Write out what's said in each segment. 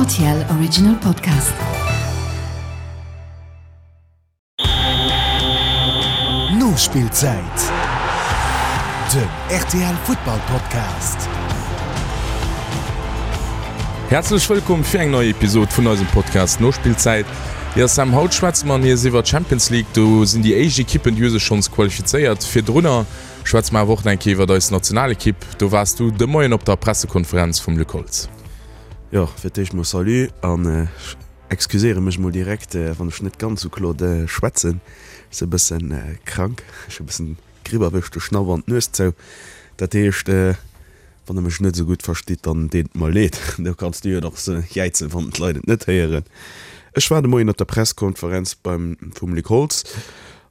Rtl Original Podcast. Nospillzäit, den rtl Futtball Podcast. Häerzlech wëllkomm fir eng nei Episod vun eisem Podcast Nospillzäit. Jo Sam, haut schwätze mer nees iwwer d'Champions League. Do sinn déi éischt Ekippen, déi hu sech schonns qualifizéiert. Virdrunner Schwätze mer awer och nach eng Kéier iwwert eis Nationalekipp. Do waars du de Moien op der Pressekonferenz vum Luc Holtz. Jo, fir d'éischt mol Salut an ech excuséiere mech mol direkt, wann ech net ganz sou kloer schwätzen. Ech si e bëssen krank, ech hu e bëssen d'Gripp erwëscht, de Schnapp an d'Nues zou. Dat heescht, Wann der mech net esou gutt verstitt, dann deet et mer leed. Do kanns du jo nach jäizen, wann d'Leit et net héieren. Ech war de Moien op der Presskonferenz beim vum Luc Holtz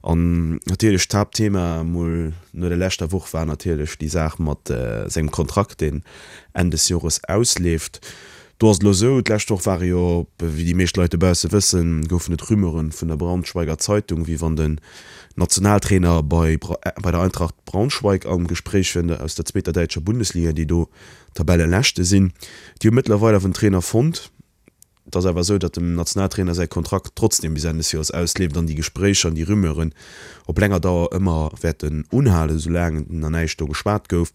an natierlech d'Haaptthema mol no der leschter Woch war natierlech déi Saach mat sengem Kontrakt, deen Enn des Jores ausleeft. Do ass et elo esou, d'lescht Woch ware jo, wéi déi meescht Leit dobausse wëssen, goufen et Rumeuren vun der Braunschweiger Zeitung, wéi wann den Nationaltrainer bei bei der Eintracht Braunschweig am Gespréich wier, aus der zweeter däitscher Bundesliga, déi do Tabelleleschte sinn. Déi hu mëttlerweil awer en Trainer fonnt. Et ass awer esou, datt dem Nationaltrainer säi Kontrakt trotzdeem bis Enn des Joers ausleeft an déi Gespréicher an déi Rumeuren op länger Dauer ëmmer wäerten unhalen, soulaang nach näischt do geschwat gouf.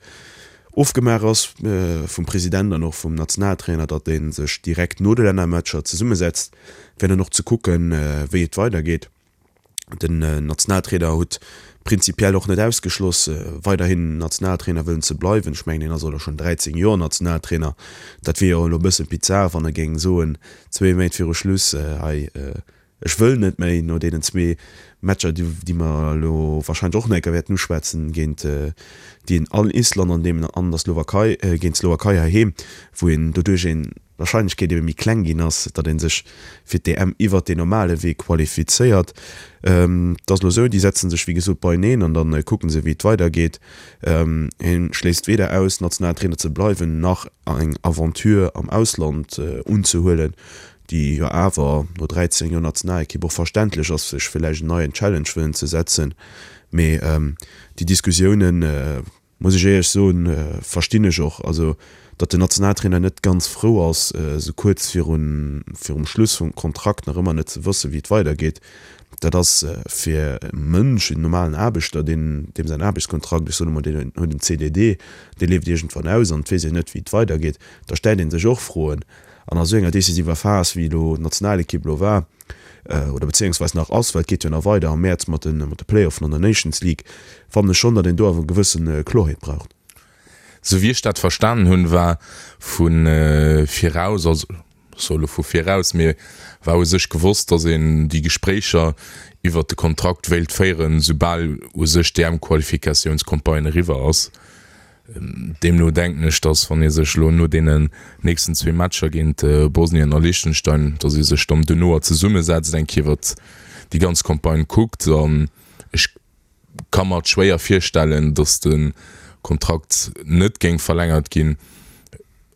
Ofgemaach ass vum President an och vum Nationaltrainer, datt ee sech direkt no de Lännermatcher zesummesetzt, fir dann och ze kucken, wéi et weidergeet. Den Nationaltrainer huet prinzipiell och net ausgeschloss, weiderhin Nationaltrainer wëllen ze bleiwen. Ech mengen, hien ass elo schonn 13 Joer Nationaltrainer. Dat wier jo elo e bësse bizar, wann e géing soen, zwee Méint viru Schluss, hei, Ech wëll net méi no deenen zwee Matcher, déi mer elo warscheinlech och nach eng Kéier wäerten uschwätzen, géint déi an Island an deem an der Slowakei, géint d'Slowakei heiheem, wou een doduerch een d'Warscheinlechkeet ebe méi kleng ginn ass, datt ee sech fir d'EM iwwert deen normale Wee qualifizéiert. Et ass elo esou, déi setze sech wéi gesot beieneen an da kucke se wéi et weidergeet. Hie schléisst weder aus, Nationaltrainer ze bleiwen, nach eng Aventure am Ausland unzehuelen. déi jo awer no 13 Joer Nationalekipp och verständlech ass, sech villäicht en neien Challenge wëllen ze setzen. Mee déi Diskussiounen, muss ech éierlech soen, verstinn ech och. Also, datt den Nationaltrainer net ganz frou ass, esou kuerz virun virum Schluss vum Kontrakt nach ëmmer net ze wëssen, wéi et weidergeet, dat ass fir e Mënsch, en normalen Aarbechter, deen, deem säin Aarbechtskontrakt, ech soen emol, deen huet en CDD, dee leeft iergendwann aus an et weess een net, wéi et weidergeet, da stellt ee sech och Froen. An a sou enger decisiver Phas, wéi elo d'Nationalekipp elo war, oder bezéiungsweis nach ass, well et geet jo nach weider am Mäerz mat de mat de Playoffen an der Nations League, fannen ech schonn, datt een do awer e gewësse Klorheet braucht. Sou wéi ech dat verstanen hunn, war vu viraus, also ech soe elo vu viraus, mee war u sech gewosst, datt een déi Gespréicher iwwert de Kontrakt wéilt féieren, soubal u sech d'EM-Qualifikatiounscampagne eriwwer ass. Deemno denken ech, datt wann ee sech elo no deenen nächsten zwee Matcher géint Bosnien a Liechtenstein, datt ee sech dann duerno zesummesetzt, eng Kéier iwwert déi ganz Campagne kuckt. An ech ka mer et schwéier virstellen, datt de Kontrakt net géing verlängert ginn.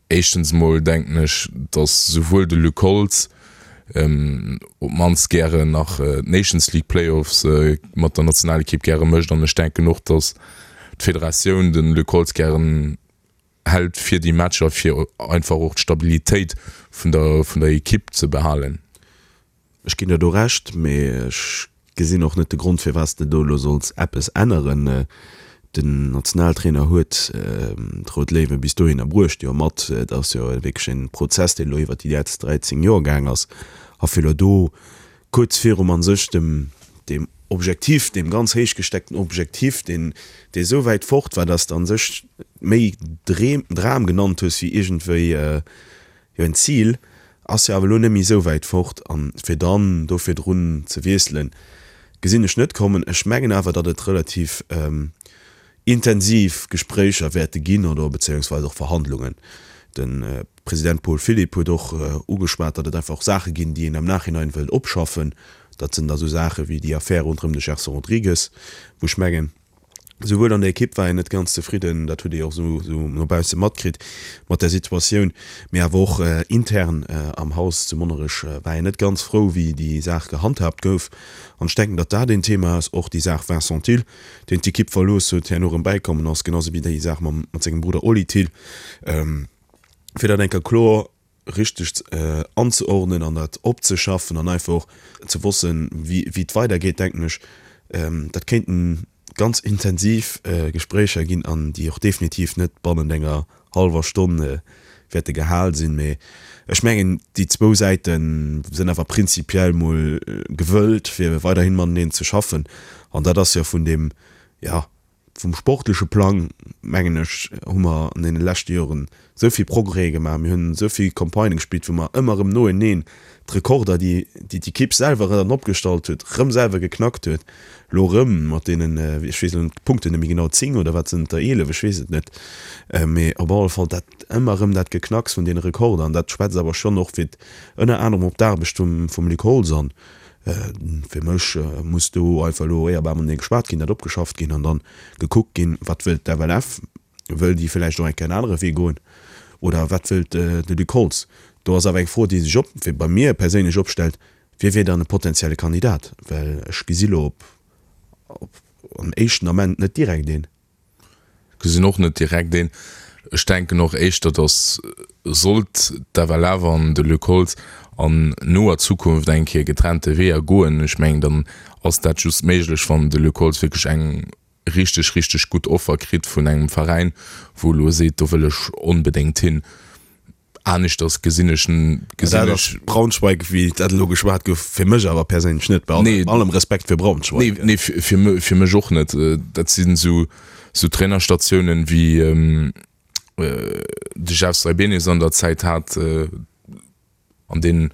Éischtens emol denken ech, datt souwuel de Luc Holtz op d'mannst gären nach d'Nations League Playoffs mat der Nationalekipp gäre mécht an ech denken och, datt d'Federatioun de Luc Holtz gären hält fir déi Matcher, fir einfach och d'Stabilitéit vun der vun der Ekipp ze behalen. Ech ginn der do Recht, mee ech gesinn och net de Grond, firwat s de do elo solls eppes änneren. Den Nationaltrainer huet d'Rout Léiwe bis dohinner bruecht, jo mat, et ass jo wierklech e Prozess, deen elo iwwert déi letzt 13 Joer gaang ass, a fir elo do kuerz virum a sech dem deem Objektiv, deem ganz héich gesteckten Objektiv, deen dee esou wäit fort war, datt s de a sech méi Dram genannt hues wéi iergendwéi Jo, en Zil ass jo awer elo net méi esou wäit fort, an fir dann do virdrun ze wiesselen, gesinn ech net kommen. Ech mengen awer, datt et relativ intensiv Gespréicher wäerte ginn oder bezéiungsweis och Verhandlungen. De President Paul Philipp huet och ugeschwat, datt et einfach och Saache ginn, déi een am Nachhinein wëllt opschaffen. Dat sinn da sou Saache wéi déi Affär ronderëm de Gerson Rodrigues, wou ech mengen, Souwuel an der Ekipp war een net ganz zefridden, dat huet ee jo och esou no bausse matkritt mat der Situatioun, mee awer och intern am Haus zu Monnerech war een net ganz frou, wéi déi Saach gehandhaabt gouf. An ech denken, datt dat een Thema ass, och déi Saach Vincent Thill, deen d'Ekipp verlooss huet, herno erëm bäikommen ass, genau esou wéi déi Saach mam mat sengem Brudder Oli Thill, fir dat eng Kéier kloer. richteg anzeordnen an dat opzeschaffen an einfach och ze wossen, wéi et weidergeet, denken ech, dat kéinten ganz intensiv Gespréicher ginn an déi och definitiv net bannent enger hallwer Stonn wäerte gehal sinn. Mee ech mengen, déi zwou Säite sinn awer prinzipiell mol gewëllt, fir weiderhi mateneen ze schaffen. An dat ass jo vun deem, jo, vum sportleche Plang, mengen ech, hu mer an deene leschte Joren esou vill Progrèse gemaach, mir hunn esou vill Campagnë gespillt, wou mer ëmmer erëm noeneen d'Rekorder, déi déi d'Ekipp selwer dann opgestallt huet, erëm selwer geknackt huet. Elo erëm mat deenen, ech weess elo d'Punkten net méi genau, 10 oder wat sinn et der, 11, ech weess et net, mee op alle Fall dat ëmmer erëm dat Geknacks vun deene Rekorder an dat schwätzt awer schonn och fir ënner anerem op d'Aarbecht vum vum Luc Holtz an Fir mech muss do einfach elo éierbar matenee geschwat ginn, dat opgeschafft ginn an dann gekuckt ginn, wat wëllt d'FLF? Wëll déi villäicht och eng Kéier en anere Wee goen oder wat wëllt de Luc Holtz? Do ass awer eng Fro, déi sech op, fir bei mir perséinlech opstellt, Wie wier dann e potenzielle Kandidat? Well ech gesi lo op op am éischten Ament net direkt een. Gesinn och net direkt een. Ech denken och éischter, datt sollt d'FLF an de Luc Holtz an noer Zukunft eng Kéier getrennte Weeër goen, ech mengen, dann ass dat just méiglech, wann de Luc Holtz wierklech eng richteg, richteg gutt Offer kritt vun engem Veräin, wou elo seet, do wëll ech onbedéngt hin. Aneschters gesinn ech gesinn ech. Braunschweig, wéi dat elo geschwat gouf, fir mech awer perséinlech net, bei allem, allem Respekt fir Braunschweig. Nee, nee, fir, fir mech och net. Dat sinn esou, esou Trainerstatiounen, wéi de Jeff Saibene se an der Zäit hat. An deen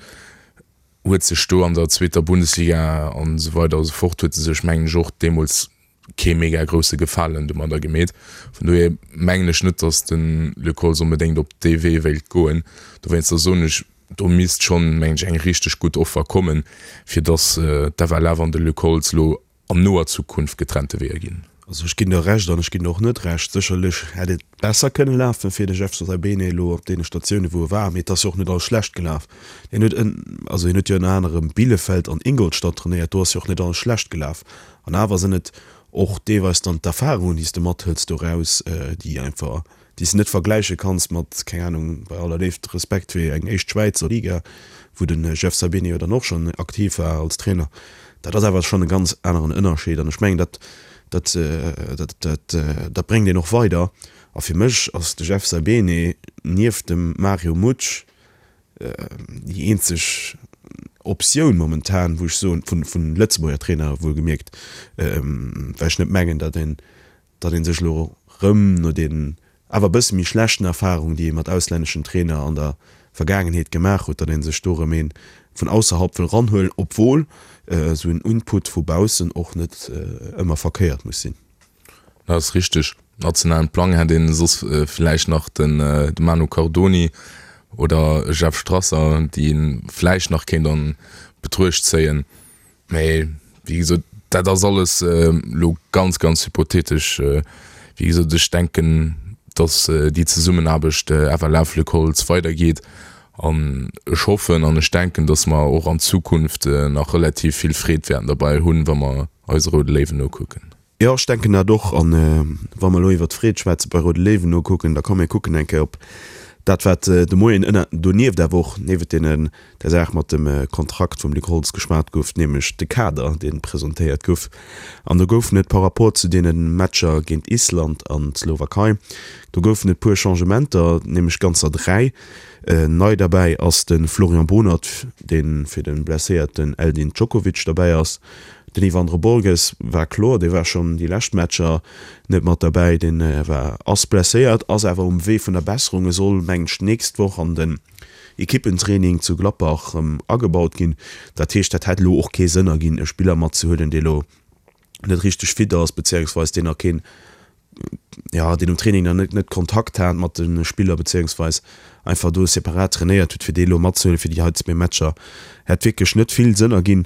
huet sech do an der zweeter Bundesliga an esou weider a sou fort, huet e sech, mengen ech, och deemools kee mega grousse Gefalen domadder gemeet. Vun dohier mengen ech net, datt de Luc Holtz onbedéngt op dee Wee wéilt goen. Dowéinster soen ech, do misst schonn, mengen ech, eng richteg gutt Offer kommen, fir datt d'FLF an de Luc Holtz elo an noer Zukunft getrennte Weeër ginn. Also ech ginn der Recht an ech ginn der och net Recht. Sécherlech hätt et besser kënne lafen fir de Jeff Saibene elo op deene Statioune wou e war, mee et ass jo och net alles schlecht gelaf. Hien huet ën, also hien huet jo ënner anerem Bielefeld an Ingolstadt trainéiert, do ass jo och net alles schlecht gelaf. An awer sinn et och deelweis dann d'Erfarungen déi s de mathëls doraus, déi einfach déi s de net vergläiche kanns mat, keng Ahnung, bei aller Léift, Respekt fir eng éischt Schwäizer Liga, wou de Jeff Saibene jo dann och schonn aktiv war als Trainer. Dat ass awer schonn e ganz aneren Ënnerscheed an ech mengen, dat, dat, dat, dat, dat bréngt een och weider. A fir mech ass de Jeff Saibene nieft dem Mario Mutsch déi eenzeg Optioun momentan, wou ech soen, vun, vun Lëtzebuerger Trainer wuelgemierkt, well ech net mengen, datt een, datt ee sech elo rëm no deenen awer e bësse méi schlechten Erfarungen, déi ee mat auslänneschen Trainer an der Vergaangenheet gemaach huet, datt ee sech do rëm ee vun ausserhalb wëll ranhuelen, obwuel esou en Input vu baussen och net ëmmer verkéiert muss sinn. Dat ass richteg. Nationalen Plang hätt een soss vläicht nach de Manu Cardoni oder e Jeff Strasser, déi ee vläicht nach kéint an Betruecht zéien. Mee wéi gesot, dat ass alles elo ganz, ganz hypothetesch. Wéi gesot, ech denken, datt déi Zesummenaarbecht FLF-Luc Holtz weidergeet. An ech hoffen an ech denken, datt mer och an Zukunft nach relativ vill Freed wäerten derbei hunn, wa mer eise Roude Léiwen nokucken. Jo, ech denken dat och. An wa mer elo iwwert d'Freed schwätze bei Roude Léiwen nokucken, da komm mir kucken eng Kéier op dat, wat de Moien ënner, donieft awer och niewent deenen, der Saach mat dem Kontrakt vum Luc Holtz geschwat gouf, nämlech de Kader, dee presentéiert gouf. An do goufen et par rapport zu deene Matcher géint Island an d'Slowakei, do goufen et puer Changementer, nämlech ganzer 3. Nei derbäi ass de Florian Bohnert, dee fir de blesséierten Eldin Djokovic derbäi ass. Den Ivandro Borges war kloer, dee war schonn déi lescht Matcher net mat derbäi, dee war, ass blesséiert, ass awer um Wee vun der Besserung. E soll, mengen ech, d'nächst Woch an den Ekippentraining zu Gladbach erëm agebaut ginn. Dat heescht, dat hätt elo och kee Sënn erginn, e Spiller matzehuelen, dee elo net richteg fit ass, beziéungsweis deen nach keen, jo, deen um Training nach net net Kontakt hat mat de Spiller, beziéungsweis einfach do separat trainéiert huet, fir dee elo matzehuelen fir déi hei zwee Matcher, hätt wierklech net vill Sënn erginn.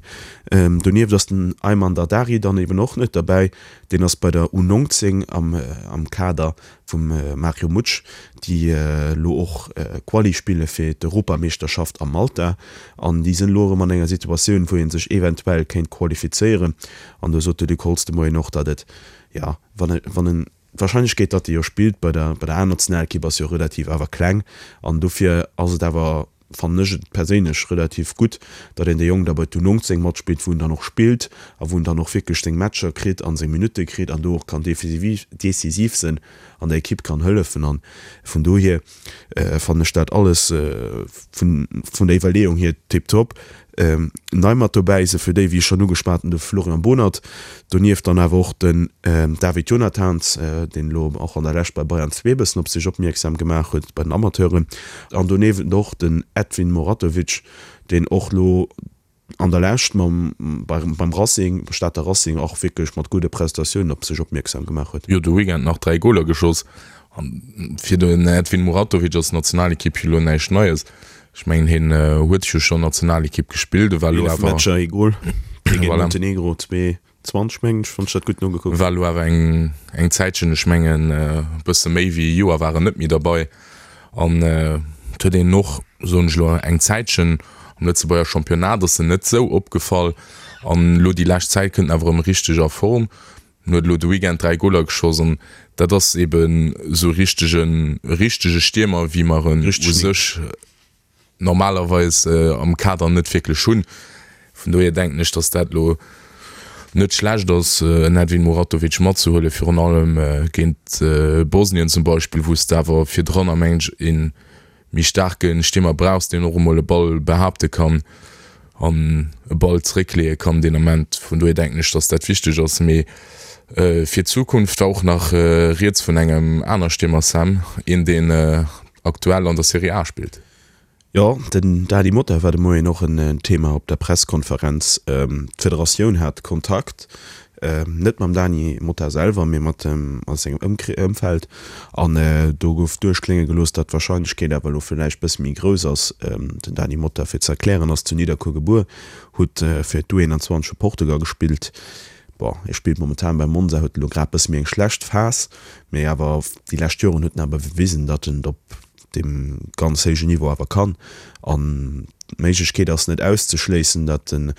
Donieft ass den Ayman Dardari dann eben och net derbäi, deen ass bei der U19 am am Kader vum Mario Mutsch, déi elo och Quali spille fir d'Europameeschterschaft a Malta. An déi sinn elo erëm an enger Situatioun, wou ee sech eventuell kéint qualifizéieren. An do sot de Luc Holtz de Moien och, datt et, jo, wann e, wann en, d'Warscheinlechkeet, datt e jo spillt bei der, bei der A-Nationalekipp ass jo relativ awer kleng. An dofir ass et awer. fannen ech et perséinlech relativ gutt, datt een de Jong da bei d'U19 matspillt, wou en dann och spillt a wou en dann och wierklech seng Matcher kritt a seng Minutte kritt an do och kann decisiv sinn an der Ekipp kann hëllefen. An vun dohier fannen ech dat alles vun der Iwwerleeung hier tiptop. Nei mat dobäi se fir déi, wéi ech schonn ugeschwat hunn, de Florian Bohnert, donieft dann awer och den David Jonathans, deen elo och an der Lescht bei Bayern 2 e bëssen op sech opmierksam gemaach huet bei den Amateuren, an doniewent och den Edvin Muratovic, deen och elo an der Lescht mam beim Racing, Stater Racing, och wierklech mat gudde Prestatiounen op sech opmierksam gemaach huet. Jo, de Weekend nach 3 Goler geschoss. An fir den Edvin Muratovic ass d'Nationalekipp jo elo näischt Neies. Ech mengen hien huet jo schonn Nationalekipp gespillt, e war elo awer. 11 Matcher, ee Gol géint Montenegro, 2,20 mengen ech, wann ech dat gutt nogekuckt hunn. War elo awer eng eng Zäitchen, ech mengen e bësse méi wéi e Joer war en net méi derbei. An et huet een och, soen ech elo, eng Zäitchen am Lëtzebuerger Championnat ass en net esou opgefall. An elo déi lescht Zäit kënnt en awer erëm richteg a Form. En huet elo de Weekend 3 Goler geschoss an dat ass eben esou e richtegen, e richtege Stiermer, wéi mer en u sech normalerweis am Kader net wierklech hunn. Vun dohier denken ech, datt dat elo net schlecht ass, en Edvin Muratovic matzehuelen, virun allem géint Bosnien zum Beispill, wou s de awer virdrun, mengen ech, een méi staarke Stiermer brauchs, deen och emol e Ball behaapte kann an e Ball zeréckleeë kann deen Ament. Vun dohier denken ech, datt dat wichteg ass. Mee fir d'Zukunft war och nach rieds vun engem aner Stiermer, Sam, een deen aktuell an der Serie A spillt. Jo, den Dany Motta war de Moien och en Thema op der Presskonferenz. D'Federatioun hat Kontakt Net mam Dany Motta selwer, mee mat sengem Ëmfeld. An do gouf duerchklénge gelooss, datt d'Warscheinlechkeet awer elo villäicht bësse méi grouss ass. Den Dany Motta, fir ze erklären, ass zu Nidderkuer gebuer, huet fir d'U21 vu Portugal gespillt. Bon, hie spillt momentan bei Monza, huet elo grad bësse méi eng schlecht Phas, mee awer déi lescht Joren huet en awer bewisen, datt en op deem ganz héijen Niveau awer kann. An d'Méiglechkeet ass net auszeschléissen, datt en,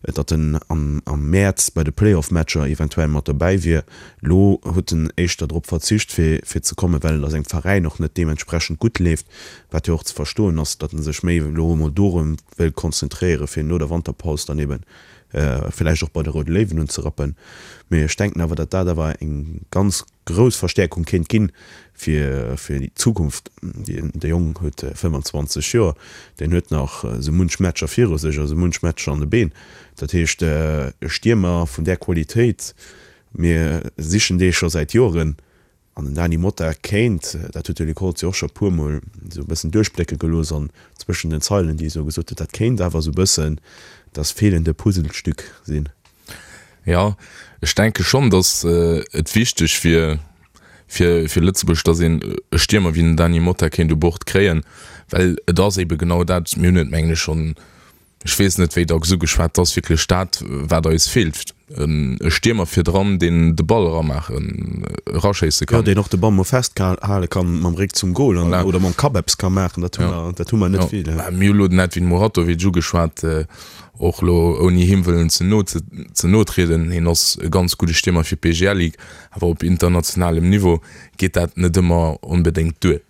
datt en am Mäerz bei de Playoff-Matcher eventuell mat dobäi wier. Elo huet en éischter drop verzicht, fir, fir ze kommen, well et a sengem Veräin och net deementsprechend gutt leeft, wat jo och ze verstoen ass, datt en sech méi elo emol dorëm wëll konzentréieren, fir no der Wanterpaus dann ebe villäicht och bei de Roude Léiwen unzerappen. Mee ech denken awer, datt dat awer eng ganz grouss Verstäerkung kéint ginn fir fir déi Zukunft. De Jong huet 25 Joer, deen huet nach esou munch Matcher viru sech a sou munch Matcher an de Been. Dat heescht e Stiermer vun där Qualitéit, mir sichen dee scho säit Joren an den Dany Motta kéint, dat huet de Luc Holtz jo och scho puer mol esou e bëssen duerchblécke gelooss an zwëschen den Zeilen, déi e sou gesot huet, dat kéint awer esou e bëssen das fehlende Puzzlestück sinn. Jo, ech denke schonn, datt et wichteg wier fir fir Lëtzebuerg, datt een e Stiermer wéi den Dany Motta kéint u Bord kréien, well et ass eebe genau dat, mir hunn et mengen ech schonn, ech weess net wéi dacks ugeschwat, et ass wierklech dat wat eis feelt, e Stiermer virdran, deen de Ball eramaachen, eraschéisse kann. Jo, deen och de Ball mol festhale kann mam Réck zum Gol an oder mam Kapp eppes ka maachen, dat hu mer, dat hu mer net vill. Mir hu lo den Edvin Muratovic ugeschwat, Och elo ouni him wëllen ze no ze no trieden, hien ass e ganz gudde Stiermer fir d'BGL Ligue, awer op internationalem Niveau geet dat net ëmmer onbedéngt duer.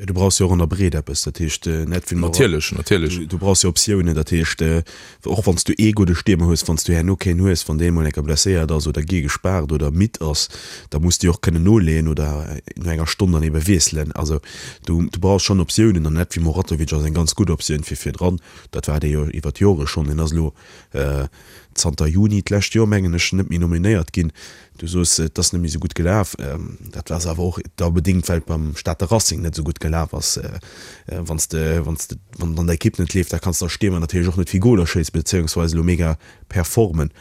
Jo, du brauchs jo och an der Breet eppes, dat heescht net wéi Natierlech, natierlech. Du brauchs jo Optiounen, dat heescht och wann s du ee gudde Stiermer hues, wann s du herno keen hues, wann dee mol eng Kéier blesséiert ass oder gi gespaart oder midd ass, da muss du jo och kënnen noleeën oder no enger Stonn dann ebe wiesselen. Also du brauchs schonn Optiounen an Edvin Muratovic ass eng ganz gutt Optioun fir virdran. Dat war dee jo iwwer d'Jore schonn. Deen ass elo zanter Juni d'lescht Joer, mengen ech, net méi nominéiert ginn. Du soos, et ass net méi esou gutt gelaf. Dat ass awer och da bedéngt, well et beim Stater Racing net esou gutt gelaf ass. Wann s de, wann s de, wann et an der Ekipp net leeft, da kanns de als Stiermer natierlech och net vill Goler schéissen, beziéungsweis elo mega performen.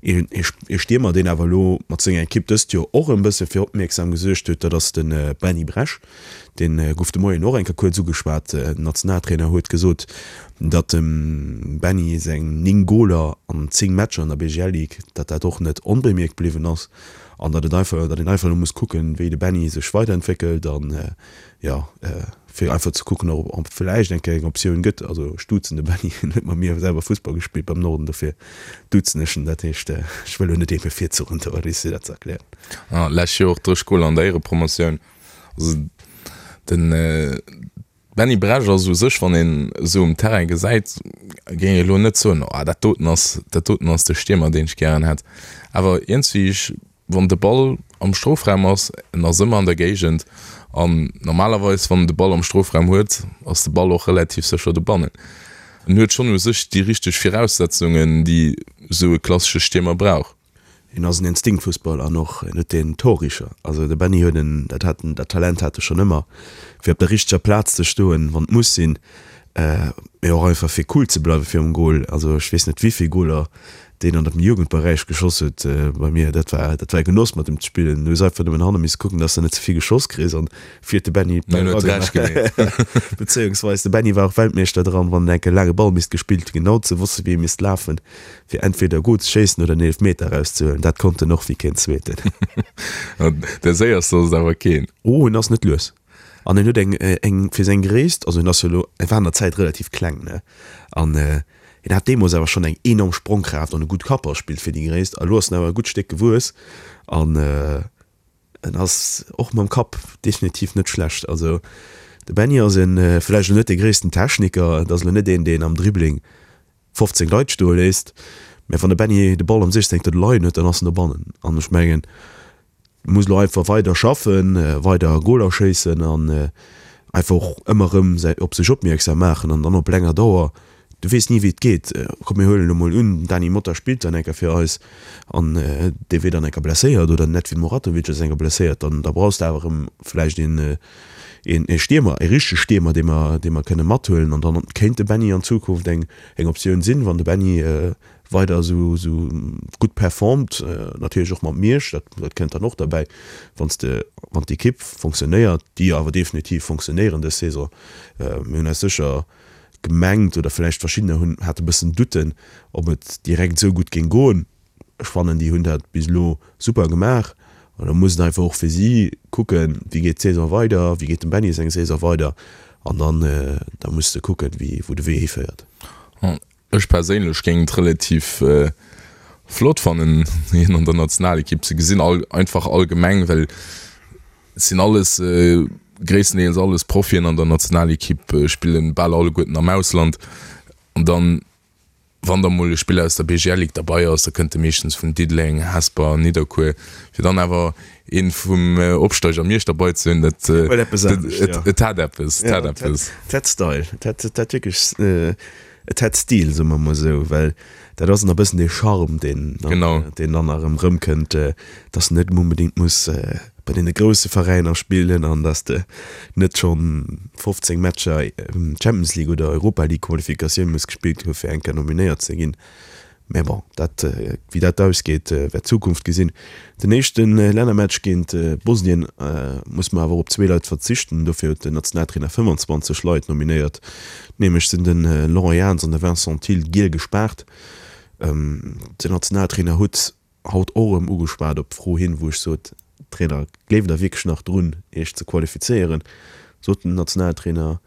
Ee Stiermer, deen awer elo mat senger Ekipp dëst Joer och e bësse fir Opmierksam gesuergt huet, dat ass de Benny Bresch. Dee gouf de Moien och eng Kéier kuerz ugeschwat. Den Nationaltrainer huet gesot, datt dem Benny seng 9 Goler an 10 Matcher an der BGL Ligue, datt dat och net onbemierkt bliwwen ass an datt et einfach, datt een einfach elo muss kucken, wéi de Benny sech weiderentwéckelt an, jo, fir einfach ze kucken, ob et vläicht eng Kéier eng Optioun gëtt. Also ech duzen de Benny, hien huet mat mir selwer Fussball gespillt beim Norden, dofir duzen ech en. Dat heescht, ech wëll elo net ee bevirzuchen do, fir dat ze erklären. Lescht Joer och 30 Goler an der Éierepromotioun. Also den. Benny Bresch ass u sech, wann een esou um Terrain gesäit, géing ech elo net soen, oh dat doten ass, dat doten ass de Stiermer, deen ech gären hätt. Awer iergendwéi, ech, wann de Ball am Strofraum ass, en ass ëmmer an der Géigend an normalerweis, wann en de Ball am Strofraum huet, ass de Ball och relativ sécher dobannen. En huet schonn u sech déi richteg Viraussetzungen, déi esou e klassesche Stiermer brauch. Hien ass en Instinktfussballer an och en huet den Torricher. Also de Benny huet en, dat hat en, dat Talent hat e schonn ëmmer, fir op der richteger Plaz ze stoen, wann et muss sinn, mee och einfach fir cool ze bleiwe virum Gol. Also ech weess net wéivill Goler deen an dem Jugendberäich geschoss huet bei mir. Dat war, dat war e Genoss mat em ze spillen. Du hues einfach nëmmen hanne misse kucken, dass de net ze vill geschoss kriss an vir huet de Benny d'Bäll eragemaach. Bezéiungsweis de Benny war och Weltmeeschter dran, wann enk e laange Ball misst gespillt ginn, genau ze wosse wéi e misst lafen. Fir entweder Goal ze schéissen oder en Eelefmeter erauszehuelen, dat konnt en och wéi keen zweeten. De séierste ass et awer keen. Oh, en ass net lues. An en huet eng, eng fir seng Gréisst, also en ass jo elo, e war an der Zäit relativ kleng, ne? An en hat deemools awer schonn eng enorm Sprongkraaft an e gutt Kappballspill fir déi Gréisst. A elo ass en awer e gutt Stéck gewuess an en ass och mam Kapp definitiv net schlecht. Also de Benny ass en, vläicht elo net de gréissten Techniker, et ass elo net een, deen am Dribbling 15 Leit stoe léisst, mä wann de Benny de Ball am 16. leien huet, dann ass en dobannen. An ech mengen, e muss elo einfach weider schaffen, weider Goler schéissen an einfach och ëmmer erëm op sech opmierksam maachen an dann op länger Dauer, du weess ni wéi et geet. Komm mir huelen elo mol un, den Dany Motta spillt dann eng Kéier fir eis an dee wier dann eng Kéier blesséiert oder den Edvin Muratovic ass eng Kéier blesséiert, dann da brauchs de awer erëm vläicht een een ee Stiermer, ee richtege Stiermer, dee mer, dee mer kënne mathuelen. An dann kéint de Benny an Zukunft eng, eng Optioun sinn, wann de Benny weider esou, esou gutt performt, natierlech och mat Miersch, dat, dat kënnt dann och derbäi, wann s de, wann d'Ekipp fonctionnéiert, déi awer definitiv fonctionnéieren dës Saison. Mir hunn eis sécher gemengt, oder vläicht verschiddener hunn, hate bëssen Doutten, ob et direkt esou gutt géing goen. Ech fannen déi hunn dat bis elo super gemaach an da muss et einfach och fir si kucken, wéi geet d'Saison weider, wéi geet dem Benny seng Saison weider an dann da muss de kucken, wéi wou de Wee hiféiert. Ech perséinlech géing et relativ flott fannen hien an der Nationalekipp ze gesinn, einfach allgemeng well et sinn alles gréisstendeels alles Profien an der Nationalekipp, spillen bal alleguerten am Ausland an dann Wann da mol e Spiller aus der BGL Ligue derbei ass, da kënnt e meeschtens vun Diddeleng, Hesper, Nidderkuer. Fir dann awer ee vum Opsteiger Miersch derbei ze hunn, dat, et hat eppes, et hat eppes. Et hat Style, et hat, et hat wierklech, et hat Stil, soe mer mol esou, well dat ass nach e bëssen dee Charme, deen, deen dann erëm erëmkënnt, dass en net onbedéngt muss bei deene grousse Veräiner spillen an dass de net schonn 15 Matcher Champions League oder Europa League Qualifikatioun muss gespillt hu fir eng Kéier nominéiert ze ginn. Mä bon, dat, wéi dat ausgeet, wäert d'Zukunft gesinn. Den éischte Lännermatch géint Bosnien muss mer awer op zwee Leit verzichten. Dofir huet den Nationaltrainer 25 Leit nominéiert. Nämlech sinn de Laurent Jans an de Vincent Thill giel gespaart. Den Nationaltrainer huet haut och erëm ugeschwat op d'Fro hin, wou ech sot, Trainer, gleeft Der wierklech nach drun, Iech ze qualifizéieren? Sot den Nationaltrainer,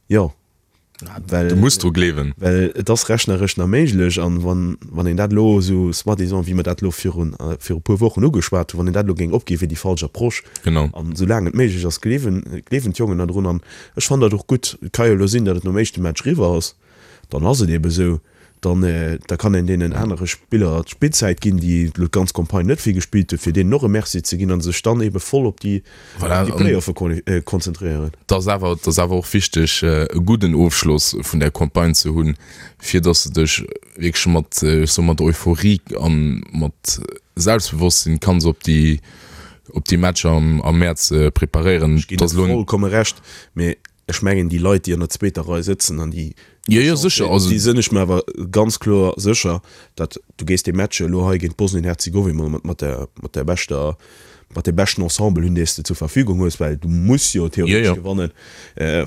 Jo, well, Du muss dru gleewen. well et ass rechneresch nach méiglech. An wann, wann een dat elo esou soi-disant, wéi mer dat elo virun, viru e puer Wochen ugeschwat hunn, wann een dat elo géing opginn, wier déi falsch Approche. Genau. An soulaang et méiglech ass, gleewen, gleewen d'Jongen nach drun. An ech fannen dat och gutt. Et ka jo elo sinn, datt et nom éischte Match eriwwer ass. Dann ass et eebe sou. Dann, da kann een deenen anere Spiller d'Spillzäit ginn, déi elo d'ganz Campagne net vill gespillt hunn, fir deenen och e Merci ze ginn a sech dann eebe voll op déi Play-offe konzentréieren. Et ass awer, et ass awer och wichteg, e gudden Ofschloss vun där Campagne ze hunn, fir datt s de dech wierklech mat, ech soe mat Euphorie a mat Selbstbewosstsinn kanns op déi, op déi Matcher am Mäerz preparéieren. Ech ginn der vollkomme Recht, mee Ech mengen, déi Leit, déi an der zweeter Rei sëtzen an déi, Jo, jo, sécher, also. déi sinn ech mer awer ganz kloer sécher, datt du gees dee Match elo hei géint Bosnien-Herzegowin mat, mat der, mat der beschter, mat deem beschten Ensemble hunn, dee s de zur Verfügung hues, well du muss jo theoretesch gewannen,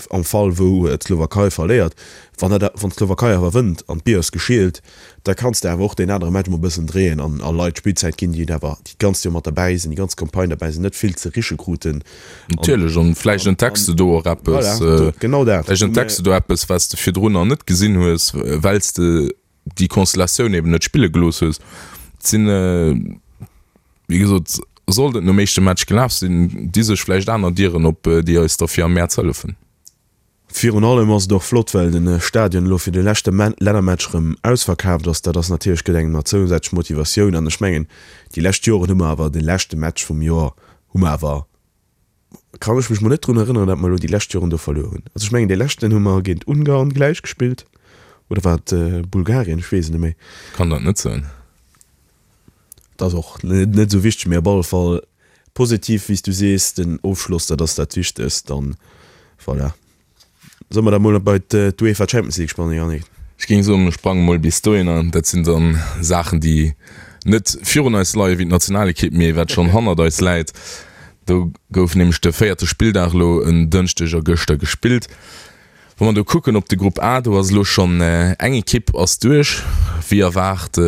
am Fall wou d'Slowakei verléiert. Wann dat, wann d'Slowakei awer wënnt an d'Bier ass geschielt, da kanns de awer och deen anere Match mol e bëssen dréien an a Leit Spillzäit ginn, déi et awer déi d'ganzt Joer mat derbäi sinn, déi ganz Campagne derbäi sinn, net vill ze riche kruten. Natierlech, an vläicht entdecks de do och eppes, voilà, genau dat. Vläicht entdecks de do eppes, wat s de virdrun nach net gesinn hues, well s de déi Konstellatioun eben net spille gelooss hues. Et sinn, wéi gesot, sollt et nom éischte Match gelaf sinn, di sech vläicht aner Dieren op, déi eis da fir am Mäerz hëllefen. Virun allem ass et och flott, well de Stadion elo fir de leschte Lännermatch erëm ausverkaaft ass. Dat ass natierlech, gëtt engem nach zousätzlech Motivatioun. An ech mengen, déi lescht Joren hu mer awer de leschte Match vum Joer hu mer awer, kann ech mech mol net drun erënneren, datt mer elo déi lescht Joren do verluer hunn. Also ech mengen, dee leschten hu mer géint Ungarn gläich gespillt, oder war et Bulgarien? Ech weess et net méi. Kann dat net soen. Dat ass och net esou wichteg, mee op alle Fall positiv, wéi s du sees, den Ofschloss, dat ass dat Wichtegst. Dann, voilà, solle mer da mol bei d'UEFA Champions League sprangen, Yannick? Ech géing soen, mir sprange mol bis dohinner. Dat sinn dann Saachen, déi net virun eis leien, wéi d'Nationalekipp, mee wat schonn hannert eis läit. Do gouf nämlech de véierte Spilldag elo en Dënschdeg a gëschter gespillt. Wa mer do kucken op de Grupp A, do ass elo schonn eng Ekipp ass duerch. Wéi erwaart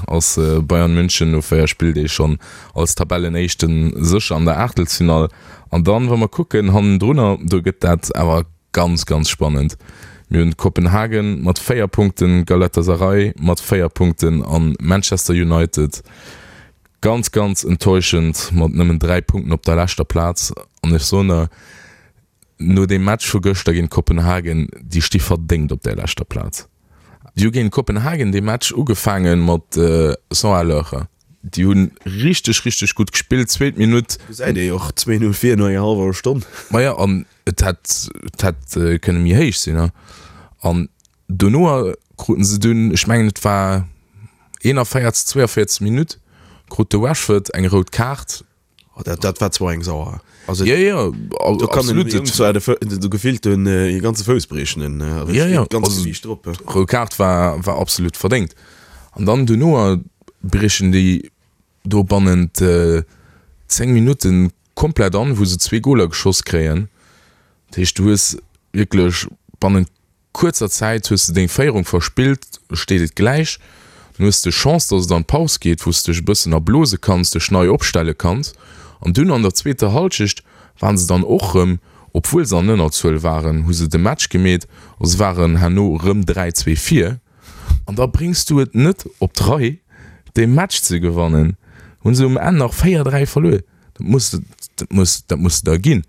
ass Bayern München no 4 Spilldeeg schonn als Tabellenéischte sécher an der Aachtelsfinall. An dann, wa mer kucken hannendrunner, do gëtt dat awer ganz, ganz spannend. Mir hunn Kopenhagen mat 4 Punkten, Galatasaray mat 4 Punkten an Manchester United ganz, ganz enttäuschend mat nëmmen 3 Punkten op der leschter Plaz. An ech soen der, No deem Match vu gëschter géint Kopenhagen, déi sti verdéngt op där leschter Plaz. Déi hu géint Kopenhagen dee Match ugefaange mat 100 à l'heure. Déi hu richteg, richteg gutt gespillt. Zweet Minutt. Do säit ee jo och 2, 0 vir no enger hallwer Stonn. Maja, an et hätt, et hätt kënne méi héich sinn. An dono kruten se dunn, ech mengen et war 41, 42 Minutt, krut de Rashford eng rout Kaart. Oh, dat, dat war zwar eng sauer. Also, ja, ja, do kann absolut. Den zwar de, de, gefillt den äh, ganze Fouss briechen. Den, äh, ja, ja. Ganz also, Gewicht drop. Rout Kaart war, war absolut verdéngt. An dann duerno briechen déi do bannent äh, 10 Minutten komplett an, wou se zwee Goler geschoss kréien. Dat heescht, du hues wierklech bannent kuerzer Zäit hues de deng Féierung verspillt, steet et gläich. Dann hues de Chance, dass et an d'Paus geet, wou s de dech e bëssen erblose kanns, dech nei opstelle kanns. An dunn an der zweeter Halschecht waren se dann och rëm, obwuel se an Ënnerzuel waren, hu se de Match gemeet a se waren herno rëm 3, 2 vir. An da bréngs du et net op d'Rei, dee Match ze gewannen. Hu se um Enn nach 4, 3 verluer. Dat muss, dat muss, dat muss de der ginn.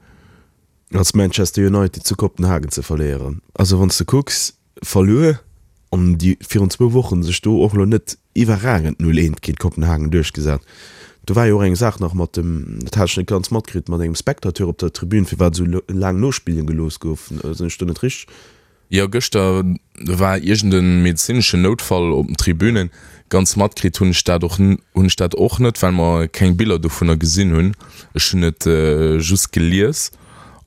Als Manchester United zu Kopenhagen ze verléieren. Also wann s de kucks, verluer an déi virun zwou Wochen sech do och elo net iwwerragend 0 eent géint Kopenhagen duerchgesat. Do war jo och eng Saach nach mat dem, dat hat ech net ganz matkritt, mat engem Spectateur op der Tribün, firwat esou laang nospille gelooss gouf. Sinn ech do net richteg? Jo, gëschter war iergend e medezineschen Noutfall op den Tribünen. Ganz matkritt hunn ech dat och hunn ech dat och net, well mer keng Biller dovunner gesinn hunn. Ech hunn et just gelies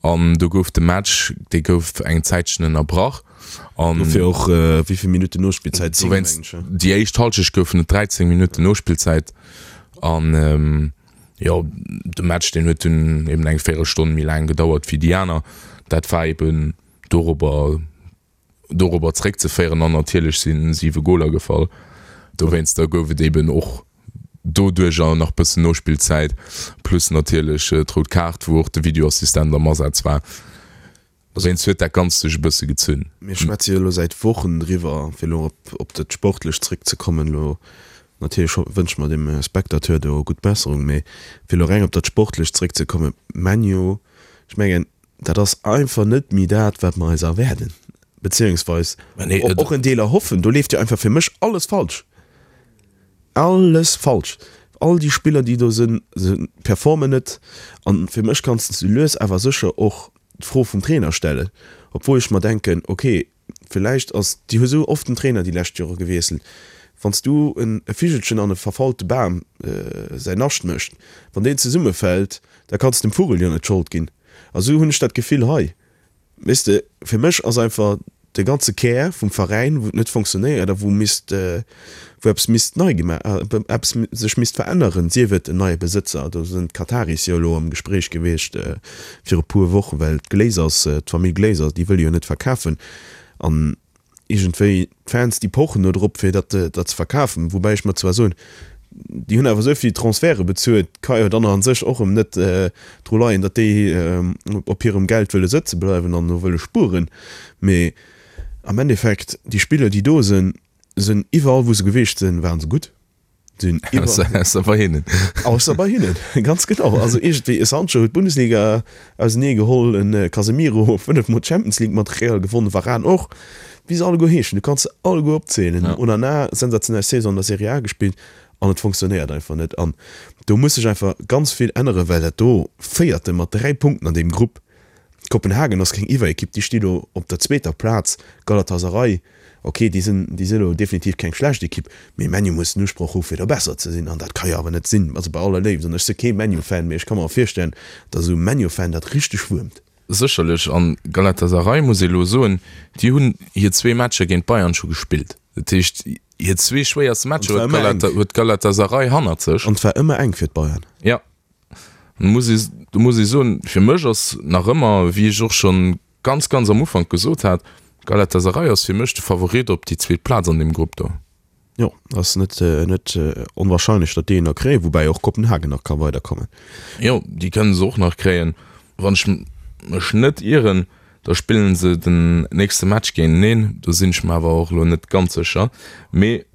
an do gouf de Match, dee gouf eng Zäitchen ënnerbrach an. Dofir och wéi vill Minutten Nospillzäit? 10 mengen ech. Déi éischt Halschecht goufen et 13 Minutten Nospillzäit an jo, de Match deen huet dunn eben eng Véierelstonn méi laang gedauert wéi déi aner. Dat war eben. dorobber dorobber zréckzeféieren an natierlech si siwe Goler gefall. Dowéinster gouf et eben och doduercher nach bëssen Nospillzäit, plus natierlech d'rout Kaart, wou och de Videoassistent am Asaz war. Dowéinst huet dat Ganzt sech e bësse gezunn. Mir schwätze jo elo säit Wochen driwwer, fir elo op dat Sportlecht zréckzekommen. Elo natierlech wënsche mer dem Spectateur do gutt Besserung, mee fir elo reng op dat Sportlecht zréckzekommen, ManU, ech mengen, Dat ass einfach net méi dat, wat mer eis erwaarden, beziehungsweis och en Deel erhoffen. Do leeft jo einfach fir mech alles falsch. Alles falsch. All déi Spiller, déi do sinn, se performen net. An fir mech kanns de lues awer sécher och d'Fro vum Trainer stellen, obwuel ech mer denken, okay, Villäicht ass, déi hu sou oft den Trainer déi lescht Jore gewiesselt, wann s du en e Vigelchen an e verfaulte Bam säin Nascht mécht, wann deen zesummefält, da kanns de dem Vugel jo net d'Schold ginn. A sou hunn ech dat Gefill hei. Weess de, fir mech ass einfach de ganze Kär vum Veräin, wou et net fonctionnéiert a wou misst, wou eppes misst nei gemaach, eppes sech misst veränneren, sief et en neie Besëtzer, do sinn d'Kataris jo elo am Gespréich gewiescht viru puer Wochen, well d'Glazers, d'Famill Glazer, déi wëlle jo net verkafen an iergendwéi d'Fans, déi pochen do drop, fir dat dat ze verkafen, woubäi ech mer zwar soen, déi hunn awer esou vill Transferte bezuelt, ka jo dann a sech och erëm net dru leien, datt déi op hirem Geld wëlle sëtze bleiwen an do wëlle spueren, mee am Endeffekt, déi Spiller, déi do sinn, Sinn iwwerall wou se geweecht sinn waren se gutt. Sinn iwwer. Ausser bei hinnen. Ausser bei hinnen, ganz genau. Also iergendwéi, e Sancho huet d'Bundesliga ausenee geholl, e Casemiro 5 mol d'Champions League mat Real gewonnen, Varane och, wéi se alleguer heeschen, du kanns se alleguer opzielen. Onana, sensationell Saison an der Serie A gespillt an et fonctionnéiert einfach net. An do muss sech einfach ganz vill änneren, well dat do Véierte mat 3 Punkten an deem Grupp, Kopenhagen ass keng Iwwerekipp, déi sti lo op der zweeter Plaz, Galatasaray, ok, déi sinn, déi si lo definitiv keng schlecht Ekipp, mee ManU muss den Usproch hu fir do besser ze sinn an dat ka jo awer net sinn. Also bei aller Léift, an ech si kee ManU-Fan, mee ech ka mer virstellen, datt esou e ManU-Fan dat richteg wuermt. Sécherlech, an Galatasaray muss ee elo soen, déi hunn hir zwee Matcher géint Bayern scho gespillt. Dat heescht, hir zwee schwéierste Matcher huet Galatasaray hannert sech. An et war ëmmer enk fir d'Bayern. Jo. Muss ee, do muss ee soen, fir mech ass nach ëmmer, wéi ech och schonn ganz, ganz am Ufank gesot hat, Galatasaray ass fir mech de Favorit op déi zweet Plaz an deem Grupp do. Jo, ass net, net onwahrscheinlech, datt déi en nach kréien, woubäi och Kopenhagen nach ka weiderkommen. Jo, déi kënne se och nach kréien. Wann ech mech net ieren, da spillen se den nächste Match géinteneen, do sinn ech mer awer och elo net ganz sécher. Mee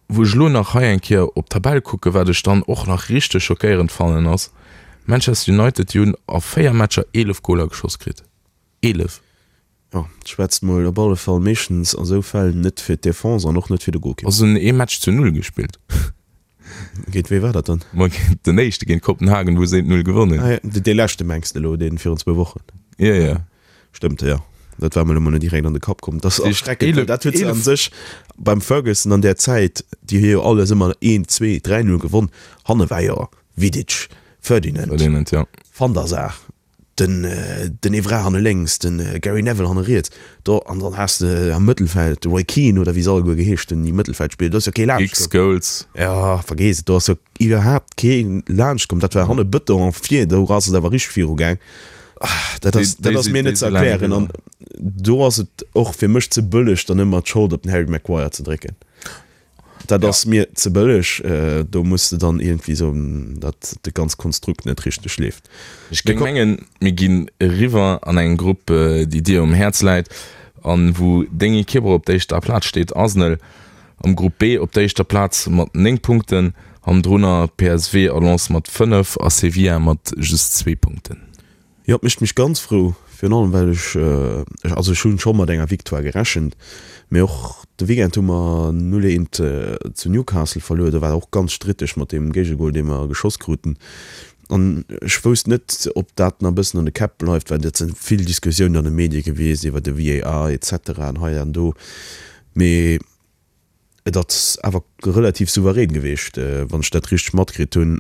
Wou ech elo nach hei eng Kéier op d'Tabell kucken, wat ech dann och nach richteg schockéierend fannen ass, Manchester United, déi hunn a 4 Matcher 11 Goler geschoss kritt. 11! Jo, dat schwätzt mol op alle Fall meeschtens a sou Fäll net fir d'Defense an och net fir de Golkipp. Also hunn ee Match zu Null gespillt. Géint wee war dat dann? Ma géint den éischte, géint Kopenhagen, wou se 1, 0 gewonnen hunn. Ah jo, dee leschte mengs de elo, dee virun zwou Wochen? Jo, jo. Stëmmt, jo. Dat war mer elo mol net direkt an de Kapp komm. Dat ass erschreckend, well dat huet se a sech beim Ferguson an där Zäit, déi hu jo alles ëmmer 1, 2, 3, 0 gewonn. Hanne war jo Vidic, Ferdinand, Ferdinand, jo. Van der Sar, den, den Evra hanne lénks, de Gary Neville hanne riets. Do, an dann has de am Mëttelfeld de Roy Keane oder wéi se alleguer geheescht hunn, déi Mëttelfeld spiller. Do ass jo kee laanscht komm. Giggs, Scholes. Jo, vergeess et, do ass jo iwwerhaapt kee laanscht komm. Dat war hanne Bëton a vir, do ass et awer richteg viru gaang. Dat ass, dat ass mir net ze erklären. An do ass et och fir mech ze bëlleg, dann ëmmer d'Schold op den Harry Maguire ze drécken. Dat ass mir ze bëlleg. Do muss de dann iergendwéi soen, datt de ganz Konstrukt net richteg leeft. Ech géing mengen, mir ginn eriwwer an eng Grupp, déi dir um Häerz läit an wou deng Ekipp och op der éischter Plaz steet, Arsenal am Grupp B op der éischter Plaz mat 9 Punkten, hannendrunner PSV a Lens mat 5 a Sevilla mat just zwee Punkten. Jo, et mécht mech ganz frou, virun allem well ech, also ech hunn scho mat enger Victoire gerechent, mee och de Weekend hu mer 0, 1 zu Newcastle verluer, do war et och ganz stritteg mat deem Géigegol dee mer geschoss kruten an ech wousst net ob dat nach e bëssen an de Käpp bleift, well dat si vill Diskussiounen an de Medie gewiescht iwwer de VAR et cetera an hei an do, mee Et ass awer relativ souverän gewiescht, wann ech dat richteg matkritt hunn.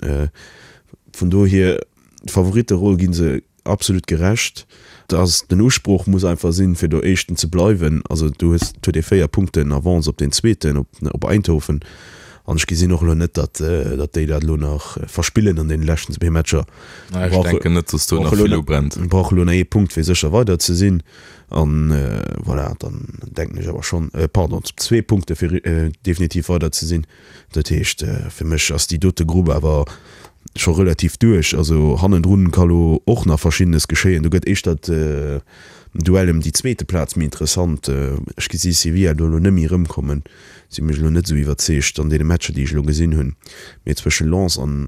Vun dohier, d'Favoritteroll gi se absolut gerecht. Dass den Usproch muss einfach sinn, fir do Éischten ze bleiwen. Also du hues, et huet ee 4 Punkten Avance op deen Zweeten, op op Eindhoven. An ech gesinn och elo net, datt datt déi dat elo nach verspillen an deene leschten zwee Matcher. Ech denken net, datt do nach vill ubrennt. Brauche elo nach ee Punkt, fir sécher weider ze sinn. An voilà, dann denken ech awer schonn, pardon, zwee Punkte fir definitiv weider ze sinn. Dat heescht, fir mech ass déi dote Grupp awer scho relativ duerch. Also hannendrun ka lo och nach Verschiddenes geschéien. Do gëtt éischter d'Duell ëm déi zweete Plaz méi interessant. Ech gesi Sevilla do elo net méi erëmkommen, si mech elo net esou iwwerzeegt an deene Matcher, déi ech elo gesinn hunn. Mee zwësche Lens an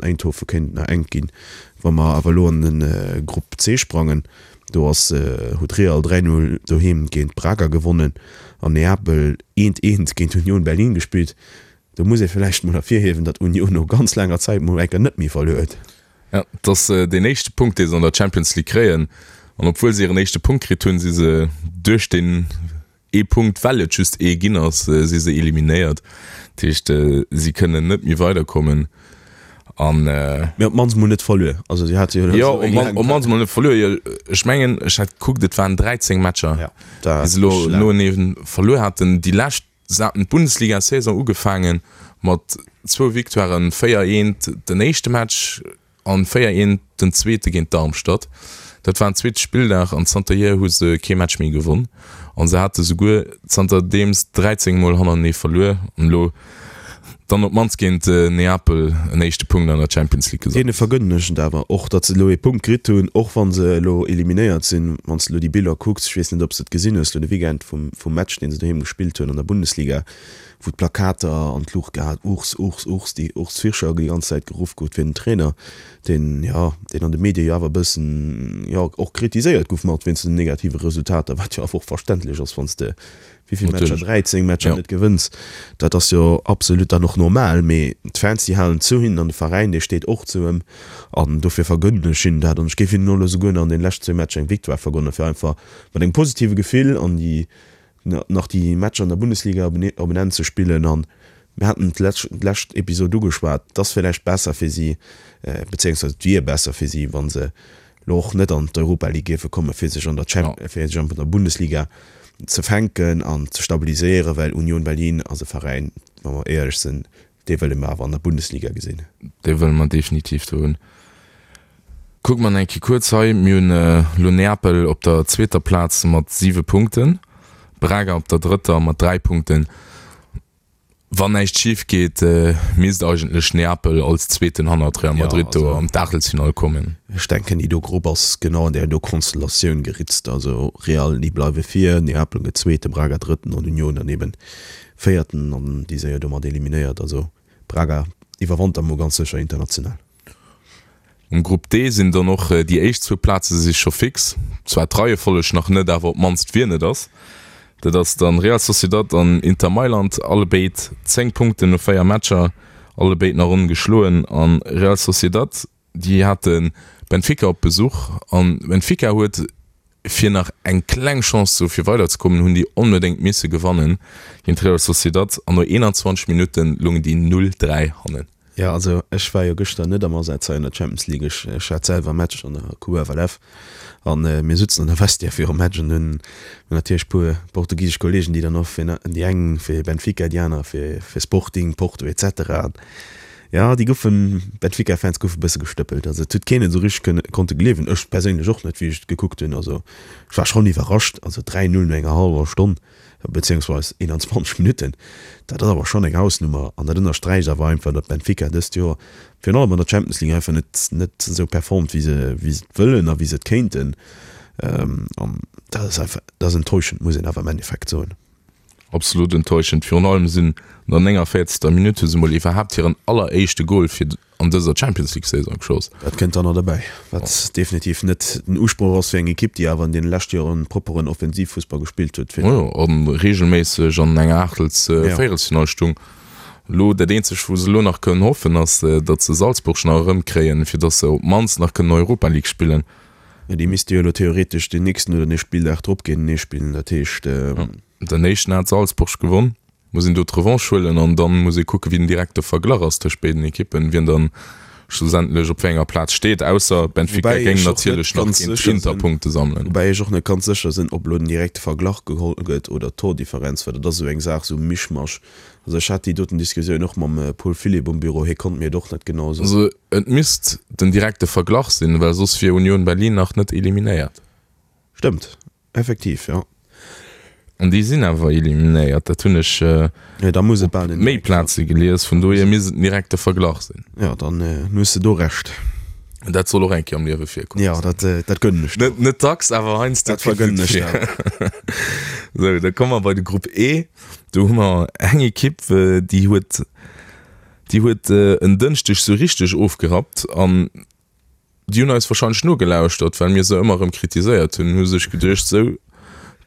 Eindhoven kéint et nach enk ginn. Wa mer awer elo an de Grupp C sprangen, Do ass huet Real 3, 0 doheem géint Braga gewonnen an Neapel eent, eent géint Union Berlin gespillt. Do muss ee villäicht mol ervirhiewen, datt Union no ganz laanger Zäit mol eng Kéier net méi verluer huet. Ja, et ass deen éischte Punkt, dee se an der Champions League kréien. An obwuel se hiren éischte Punkt kritt hunn, si se duerch deen Ee Punkt, well et just ee ginn ass, si se eliminéiert. Dat heescht, si kënnen net méi weiderkommen. An. Mee op d'mannst mol net verluer. Also si hate jo elo esou eng laang. Jo, op d'mannst mol net verluer. Jo, ech mengen, ech hat gekuckt, et waren 13 Matcher, déi se elo noenee verluer haten. Déi lescht, se haten d'Bundesliga-Saison ugefaange mat zwou Victoiren, 4, 1 den éischte Match, An 4 eent den zweete géint Darmstadt. Dat war en zweete Spilldag an zanterhier hu se kee Match méi gewonn. An se hate souguer zanterdeems 13 mol hannertenee verluer. An elo. Dann op d'mannst géint Neapel en éischte Punkt an der Champions League gesammelt. Deene vergënnen ech et awer och, datt se elo ee Punkt kritt hunn, och wa se elo eliminéiert sinn. Wann s de elo déi Biller kucks, ech weess net, ob s de et gesinn hues elo de Weekend vum vum Match, deen se doheem gespillt hunn an der Bundesliga, wou d'Plakater an d'Luucht gehat, Urs, Urs, Urs, déi Urs Fischer déi ganz Zäit geruff gouf fir den Trainer, deen, jo, deen an de Medie jo awer e bëssen, jo, och kritiséiert gouf mat wéinst den negative Resultater, wat jo awer och verständlech ass, wann s de Wéi vill Matcher? 13 Matcher net gewënns, dat ass jo absolut dann och normal. Mee d'Fans, déi halen zu hinnen an de Veräin, dee steet och zu ëm. An dofir vergënnen ech hinnen dat. An ech géif hinnen och elo souguer nach an deene leschten zwéi Matcher eng Victoire vergonnen, fir einfach mat engem positive Gefill an déi nach déi Matcher an der Bundesliga op en Enn ze spillen. An mir haten d'lescht Episod ugeschwat, et ass villäicht besser fir si, bezéiungsweis et wier besser fir si, wa se elo och net an d'Europa League géife kommen, fir sech an der Champ, fir sech an der Bundesliga ze fänken an ze stabiliséieren, well Union Berlin ass e Veräin, wa mer éierlech sinn, dee wëlle mer awer an der Bundesliga gesinn. Dee wëlle mer definitiv do hunn. Kucke mer nach eng Kéier kuerz hei, Mir hunn elo Neapel op der zweeter Plaz mat siwe Punkten, Braga op der drëtter mat 3 Punkten. Wann näischt schif geet, misst eigentlech Neapel als Zweeten hannert Real Madrid do an d'Aachtelsfinall kommen. Ech denken, déi do Grupp ass genau an där do Konstellatioun geritzt. Also Real, déi bleiwe vir, Neapel gëtt Zweete, Braga Drëtten an Union dann eben Véierten an déi séier domat eliminéiert. Also Braga iwwerwantert mol ganz sécher international. Um Grupp D sinn dann och déi éischt zwou Plaze si scho fix, zwar d'Reiefolleg nach net, awer op d'mannst wien et ass. Dat ass dann Real Sociedad an Inter Mailand, allebéid 10 Punkten no 4 Matcher, allebéid nach ongeschloen. An Real Sociedad, déi hate Benfica op Besuch an Benfica huet fir nach eng kleng Chance ze hu fir weiderzekommen, hunn déi onbedéngt misse gewannen géint Real Sociedad an no 21 Minutte loungen déi 0, 3 hannen. Jo, also ech war jo gëschter net am Asaz hei an der Champions League. Ech, ech hat selwer e Match an der QFLF an mir sutzen an der Vestiaire virum Match an hunn natierlech e puer portugisesch Kollegen, déi dann och fir, déi eng fir Benfica, déi aner fir, fir Sporting, Porto et cetera. An jo, déi goufen, Benfica-Fans goufe bësse gestëppelt. Also et huet keen et esou richteg kënne, konnte gleewen. Ech perséinlech och net, wéi ech et gekuckt hunn. Also ech war schonn iwwerrascht. Also 3, 0 no enger hallwer Stonn. beziehungsweis 21 Minutten, dat ass awer schonn eng Hausnummer an dat ënnersträicht awer einfach, datt Benfica dëst Joer virun allem an der Champions League einfach net net esou performt, wéi se wéi se et wëllen a wéi se et kéinten. An dat ass einfach, dat ass enttäuschend, muss een awer am Endeffekt soen. Absolut enttäuschend. Virun allem sinn an der 49. Minutt hu se mol iwwerhaapt hiren alleréischte Gol fir an dëser Champions League Saison geschoss. Dat kënnt dann nach derbäi, wat definitiv net den Usproch ass fir eng Ekipp, déi awer an deene leschte Joren propperen Offensivfussball gespillt huet. Jo, a reegelméisseg an enger Aachtels-, Véierelsfinall stung. Elo dat eenzegt, wou se elo nach kënnen hoffen, ass, datt se Salzburg nach erëmkréien, fir datt se op d'mannst nach kënnen Europa League spillen. Jo, déi misste jo elo theoretesch deen nächsten oder dee Spilldag drop géintenee spillen, dat heescht. Den éischten hat Salzburg gewonn. Muss een do d'Revanche huelen an dann muss ee kucken, wéi den direkte Verglach ass tëscht béiden Ekippen, wien dann schlussendlech op wéi enger Plaz steet, ausser Benfica Woubäi géing ech och net natierlech nach ganz géint sécher Inter sinn, Punkte sammelen. woubäi ech och net ganz sécher sinn, ob elo den direkte Verglach geholl gëtt oder d'Tordifferenz, well dat ass esou eng Saach, esou Mischmasch. Also ech hat déi doten Diskussioun och mam Paul Philipp um Büro, hie konnt mir et och net genau soen. Also et misst den direkte Verglach sinn, well soss wier Union Berlin nach net eliminéiert. Stëmmt. Effektiv, jo. An déi sinn awer eliminéiert, dat hunn ech Jo, da muss et op bal den méi direkte Plaze gelies, vun dohier misst et den direkte Verglach sinn. Jo, dann hues de do Recht. Dat soll och eng Kéier am Liewe virkommen. Jo, dat, dat gönnen ech der. Net, net dacks, awer heiansdo Dat vergënnen ech der. Sou, da komme mer bei de Grupp E. Do hu mer eng Ekipp, déi huet, déi huet en Dënschdeg sou richteg ofgerappt an Déi hunn eis wahrscheinlech nogelauschtert, well mir se ëmmer erëm kritiséiert hunn, hu sech geduecht, sou,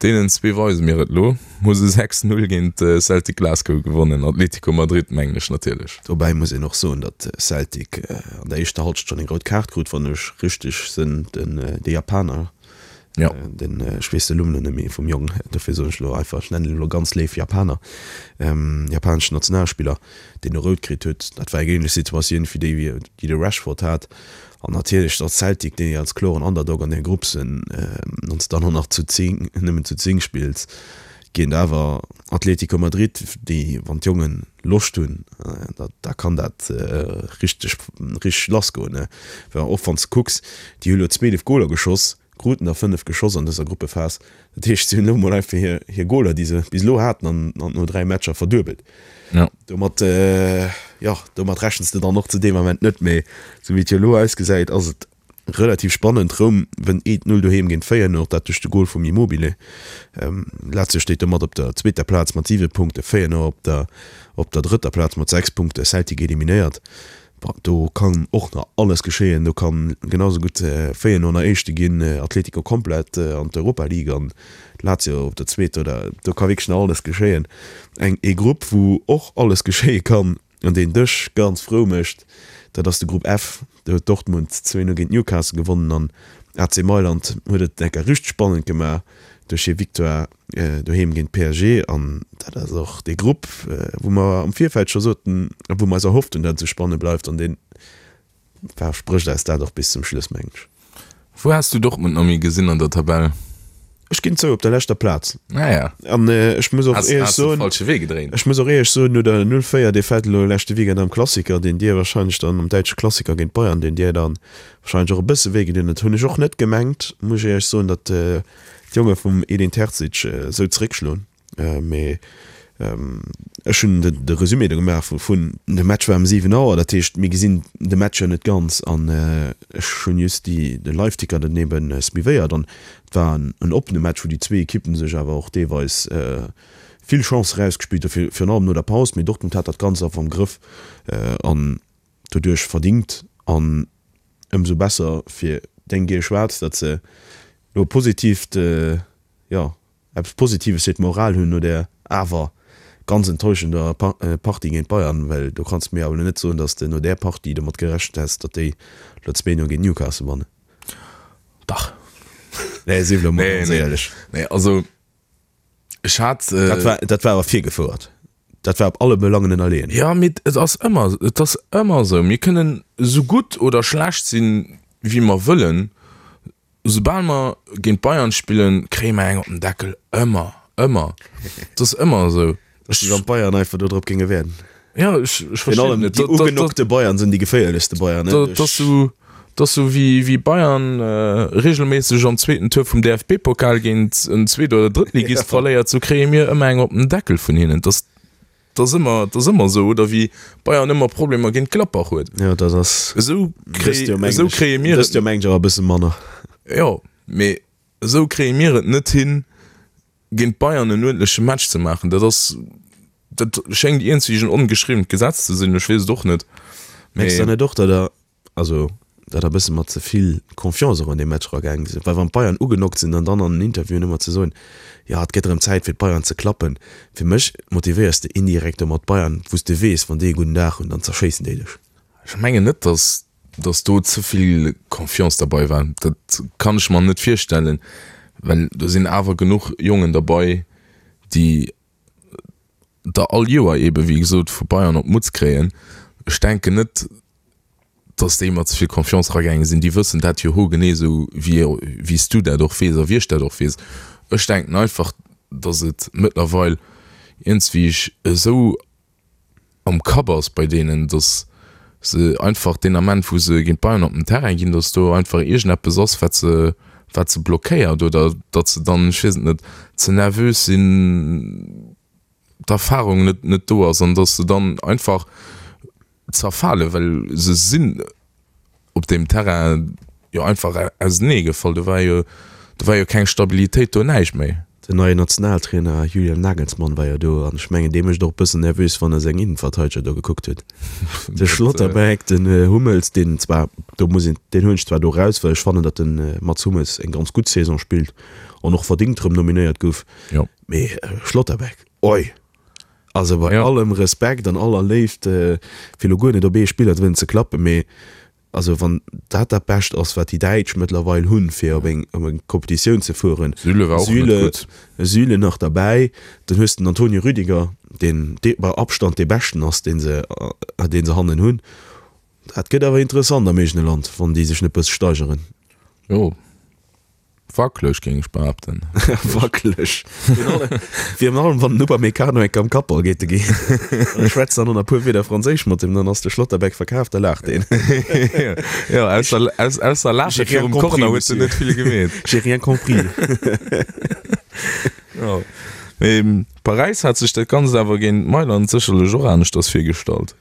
deenen zwee weise mir et lo. Hu se 6, 0 géint Celtic Glasgow gewonnen, Atlético Madrid mengen ech natierlech. Dobäi muss een och soen, datt Celtic an der éischter Halschent schonn eng rout Kaart krut, wann ech richteg sinn, den de Japaner, den, ech weess de Numm elo net méi vum Jong, dofir soen ech elo einfach, ech nennen en elo ganz léif Japaner, japaneschen Nationalspiller. deen e rout kritt huet. Dat war eng ähnlech Situatioun wéi déi, déi de Rashford hat. An natierlech datt Celtic, déi als kloren Underdog an där Grupp sinn, wann s de dann och nach zu 10, nëmmen zu 10 spills, géint awer Atlético Madrid, déi, wann d'Jongen Loscht hunn, da, da kann dat richteg, richteg lassgoen. Well och wann s de kucks, déi hu lo 12 Goler geschoss. Kruten der 5 geschoss an dëser Gruppephas. Dat heescht, si hunn elo mol einfach hir, hir Goler, déi se bis elo haten, an, an no 3 Matcher verduebelt. Ja. Domat, jo, domat rechens de dann och zu deem Ament net. Mee sou wéi et jo elo ausgesäit, ass et relativ spannend. Roum wënnt 1, 0 doheem géint Feyenoord, dat duerch de Gol vum Immobile. Lazio steet domat op der zweeter Plaz mat 7 Punkte, Feyenoord op der, op der drëtter Plaz mat 6 Punkte, Celtic eliminéiert. Bon, do kann och nach alles geschéien. Do kann genau sou gutt Feyenoord nach Éischte ginn, Atletico komplett an d'Europa League an Lazio op der zweeter oder do ka wierklech nach alles geschéien. Eng ee Grupp wou och alles geschéie kann an deen dech ganz frou mécht, dat ass de Grupp F. Do huet Dortmund 2, 0 géint Newcastle gewonnen an AC Mailand huet et enker richteg spannend gemaach duerch hir Victoire doheem géint PSG an dat ass och dee Grupp, wou mer am Virfeld scho soten a wou mer eis erhofft hunn, datt et esou spannend bleift an dee versprécht eis dat och bis zum Schluss, mengen ech. Wou has du Dortmund Nomi gesinn an der Tabell? Ech ginn zou, op der leschter Plaz. Ah ja. An ech muss och éierlech soen, falsche Wee gedréint. Ech muss och éierlech soen, no der 0, 4 Defaite elo leschte Weekend am Klassiker, deen dir wahrscheinlech dann am däitsche Klassiker géint Bayern, deen dir dann wahrscheinlech och e bësse wéi gedinn huet, hunn ech och net gemengt, muss ech éierlech soen, datt d'Jonge vum Edin Terzic esou zeréckschloen. Mee ech hunn de Resumé do gemaach vun. De Match war ëm 7 Auer, dat heescht mir gesinn de Match jo net ganz an ech hunn just déi de Liveticker dann eben suivéiert an et war en oppene Match, wou déi zwee Ekippen sech awer och deelweis vill Chancë rausgespillt hu virun allem no der Paus. Mee Dortmund hat dat Ganzt einfach am Grëff an doduerch verdingt an ëmsou besser fir deng Giel Schwaarz, datt se elo e positiivt, jo, eppes Positives fir d'Moral hunn no där awer ganz enttäuschender Partie géint Bayern, well do kanns de mir awer elo net soen, datt s de no där Partie domat gerechent häss, datt déi elo 2, 0 géint Newcastle wannen. Dach. Nee, sief elo mol ganz éierlech. Nee, also ech hat. Dat war, dat war awer virgefouert. Dat war op alle Belangen ënnerleeën. Jo, mee et ass ëmmer, et ass ëmmer esou. Mir kënnen esou gutt oder schlecht sinn, wéi mer wëllen. Soubal mer géint Bayern spillen, kréie mer eng op den Deckel. Ëmmer, ëmmer. Et ass ëmmer esou. Et ass wéi wann d'Bayern einfach do drop géinge wäerden. Jo, ech, ech verstinn et net. Déi ugenockte Bayern sinn déi geféierlechste Bayern. Dat ass esou, dat ass esou wéi, wéi Bayern reegelméisseg am zweeten Tour vum DFB-Pokal géint en Zweet oder Drëttligist verléiert, esou kréie mir ëmmer eng op den Deckel vun hinnen. Dat ass, dat ass ëmmer, dat ass ëmmer esou. Oder wéi Bayern ëmmer Problemer géint Gladbach huet. Jo, dat ass. Esou kréie, esou kréie mir et. Dëst Joer mengen ech awer e bësse manner. Jo, mee esou kréie mir et net hin, géint Bayern en uerdentleche Match ze maachen, dat ass, dat schéngt iergendwéi en ongeschriwwent Gesetz ze sinn, ech weess et och net. Mengs de net och, datt der, also datt der e bësse mat ze vill Confiance och an dee Match eragaange sidd? Well wann d'Bayern ugenockt sinn an dann an den Interviewen ëmmer ze soen, jo et gëtt erëm Zäit fir d'Bayern ze klappen, fir mech motivéiers de indirekt domat d'Bayern, wou s de weess, wann déi e gudden Dag hunn, dann zerschéissen déi dech. Ech mengen net, datt dass do ze vill Confiance derbei war, dat kann ech mer net virstellen, well do sinn awer genuch Jongen derbei, déi der all Joer eebe wéi gesot vu Bayern op d'Mutz kréien. Ech denken net, dass déi mat ze vill Confiance eragaange sinn. Déi wëssen dat jo hogenee esou wéi wéi s du dat och weess a wéi ech dat och weess. Ech denken einfach, dass et mëttlerweil iergendswéi esou am Kapp ass bei deenen, dass se einfach deen Ament wou se géint Bayern op den Terrain ginn, dass do einfach iergendeppes ass wat se wat se blockéiert oder datt se dann, ech weess et net, ze nervös sinn, d'Erfahrung net net do ass an dass se dann einfach zerfalen, well se sinn op deem Terrain jo einfach ausenee gefall. Do war jo, do war jo keng Stabilitéit do, näischt méi. Den neien Nationaltrainer Julian Nagelsmann war jo do an ech mengen dee mécht och e bëssen nervös wann e seng Innenverteideger do gekuckt huet. De Schlotterbeck, den Hummels, deen zwar, do muss een, deen huelen ech zwar do raus, well ech fannen datt de Mats Hummels eng ganz gutt Saison spillt an och verdingt rëm nominéiert gouf, mee Schlotterbeck, oi! Also bei allem Respekt an aller Léift, fir elo guer net op ee Spiller wëllen ze klappen, mee also wann dat dat Bescht ass, wat déi Däitsch mëttlerweil hunn, fir op eng op eng Competitioun ze fueren, Süle war och net Süle, gutt. Süle nach derbäi, dann hues de den Antonio Rüdiger, deen dee bei Abstand dee Beschten ass, dee se dee se hannen hunn. Dat gëtt awer interessant am eegene Land, wann déi sech net bësse steigeren. Jo. Wackeleg, géing ech behaapten. Wackeleg. Virun allem, wann den Upamecano enk am Kappball geet, de ginn. An ech schwätzt dann och nach e puer Wierder Franséisch mat him, dann ass de Schlotterbeck verkaaft, da laacht deen. Jo, ausser, ausser Laache virum Corner huet en net vill gemeet. J'ai rien compris. Jo. Mee Paräis hat sech dat Ganzt awer géint Mailand sécherlech och aneschters virgestallt.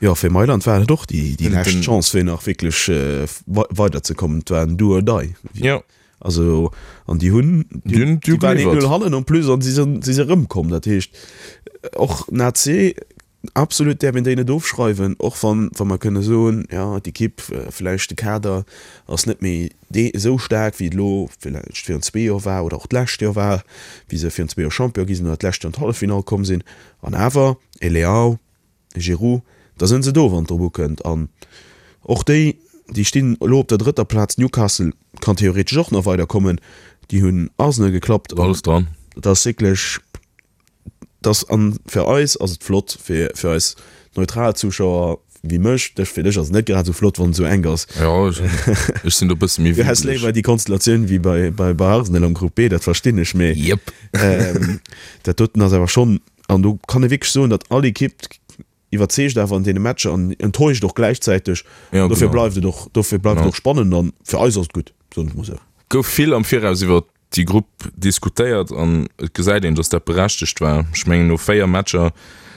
Jo, fir Mailand war et och déi lescht Chance fir nach wierklech weiderzekommen. Et war en Do or Die. Jo. Also an déi hunn, déi waren 1-0 hannen en plus an si sinn si erëmkomm. Dat heescht och den AC absolut däerf een déi net ofschreiwen, och wann wa mer kënne soen, jo d'Ekipp, vläicht de Kader ass net méi dee esou staark wéi et elo vläicht virun zwee Joer war oder och d'lescht Joer war, wéi se virun zwee Joer Champion gi sinn oder d'lescht Joer an d'Halleffinall komm sinn. An awer e Leao, Giroud, da sënn se do wann et drop ukënnt. An och déi, déi stinn elo op der drëtter Plaz, Newcastle kann theoretesch och nach weider kommen, déi hunn Arsenal geklappt. Alles dran. Et ass wierklech, et ass, an fir eis ass et flott, fir fir eis neutral Zuschauer wéi mech, dech, fir dech ass et net grad esou flott wann et esou enk ass. Jo, ech sinn do e bësse méi Du häss léiwer déi Konstellatioun wéi bei bei bei Arsenal am Grupp B, dat verstinn ech, mee Jep. dat doten ass awer schonn An do kann ee wierklech soen, datt all Ekipp iwwerzeegt awer an deene Matcher an enttäuscht och gläichzäiteg. Ja, Dofir genau. bleift et och, dofir bleift et Ja. och spannend an fir eis ass et gutt, soen ech mol esou. Gouf vill am Viraus iwwer déi Grupp diskutéiert an et gesäit een, datt dat berechtegt war. Ech mengen no 4 Matcher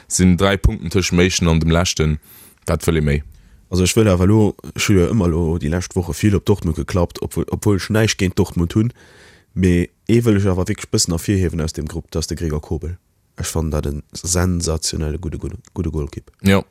sinn 3 Punkten tëscht dem éischten an dem leschten. Wat wëll ee méi? Also ech wëll awer elo, ech hu jo ëmmer elo déi lescht Woche vill op Dortmund geklappt, obwuel, obwuel ech näischt géint Dortmund hunn, mee Ee wëll ech awer wierklech bëssen ervirhiewen aus deem Grupp, dat ass de Gregor Kobel. Ech fannen dat e sensationelle gudde gudde Golkipp. Jo,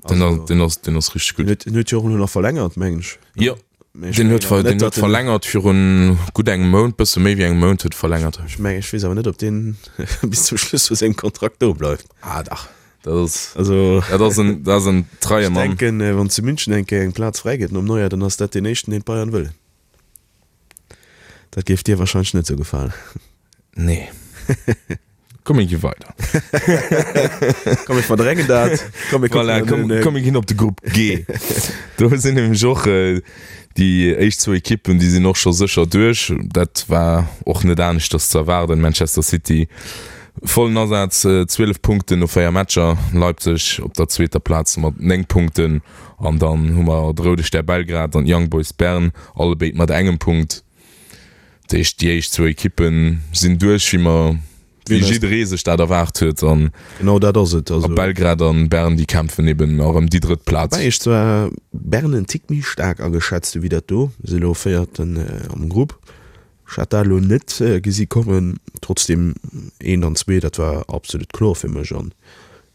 deen ass, deen ass, deen ass richteg gutt. Den huet jo och elo nach verlängert, mengen ech. Jo, deen huet, deen huet verlängert virun gutt engem Mount, bësse méi wéi engem Mount huet e verlängert. Ech mengen, ech weess awer net, ob deen bis zum Schluss vu sengem Kontrakt do bleift. Ah dach, dat ass, also, dat ass en, dat ass en treie Mann. Ech denken, wann zu München eng Kéier eng Plaz fräi gëtt nom Neuer, dann ass dat deen éischten, deen d'Bayern wëllen. Dat géif dir wahrscheinlech net sou gefalen. Nee. Komm mir gi weider. Komm mir verdrängen dat. Komm mir kucken voilà, komm, komm mir ginn op de Grupp G. Do sinn nämlech och äh, déi éischt zwou Ekippen, déi sinn och scho sécher duerch. Dat war och net aneschters ze erwaarden. Manchester City vollen Asaz, 12 Punkten no 4 Matcher. Leipzig op der zweeter Plaz mat 9 Punkten. An dann hu mer de Roude Stär Belgrad an d'Young Boys Bern, allebéid mat engem Punkt. Dat heescht, déi éischt zwou Ekippe sinn duerch, wéi mer, wéi jidderee sech dat erwaart huet. An Genau dat ass et. Also Belgrad an Bern, déi kämpfen eben nach ëm déi drëtt Plaz. Woubäi ech zwar Bern en Tick méi staark ageschätzt hu wéi dat do. Si elo Véierten am Grupp. Ech hat dat elo net gesi kommen. Trotzdem, eent an zwee, dat war absolut kloer fir mech. An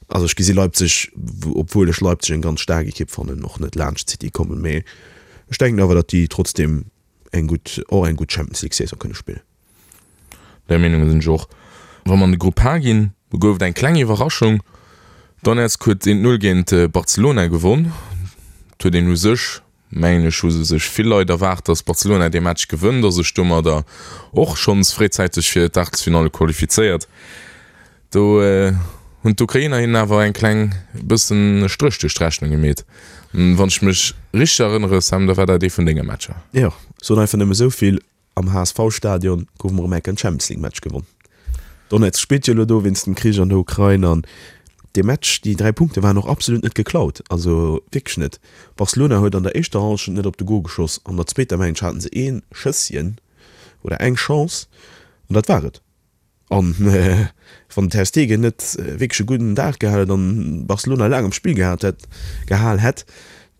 also ech gesi Leipzig, obwuel ech Leipzig eng ganz staark Ekipp fannen, och net laanscht City kommen. Mee ech denken awer, datt déi trotzdem eng gutt, och eng gutt Champions League Saison kënne spillen. Där Meenung sinn ech och. Wa mer an de Grupp H ginn, do gouf et eng kleng Iwwerraschung. Donetsk huet 1, 0 géint Barcelona gewonn. Et huet een u sech mengen ech, hu sech vill Leit erwaart, datt Barcelona dee Match gewënnt a sech domadder och schonns fréizäiteg fir d'Aachtelsfinalle qualifizéiert. Do hunn d'Ukrainer hinnen awer eng kleng bëssen e Stréch duerch d'Rechnung gemeet. Wann ech mech richteg erënnere, Sam, da war dat ee vun denge Matcher. Jo, soen einfach nëmme esou vill, Am HSV-Stadion gouf mer erëm enk en Champions League Match gewonn. Donetsk spillt jo elo do wéinst dem Krich an der Ukrain an dee Match, déi 3 Punkte waren och absolut net geklaut, also wierklech net. Barcelona huet an der éischter Hallschent net op de Gol geschoss, an der zweeter mengen ech haten se ee Schësschen oder eng Chance an dat war et. An wann den Ter Stegen net wierklech e gudden Dag gehat hätt an Barcelona laang am Spill gehat hätt, gehal hätt,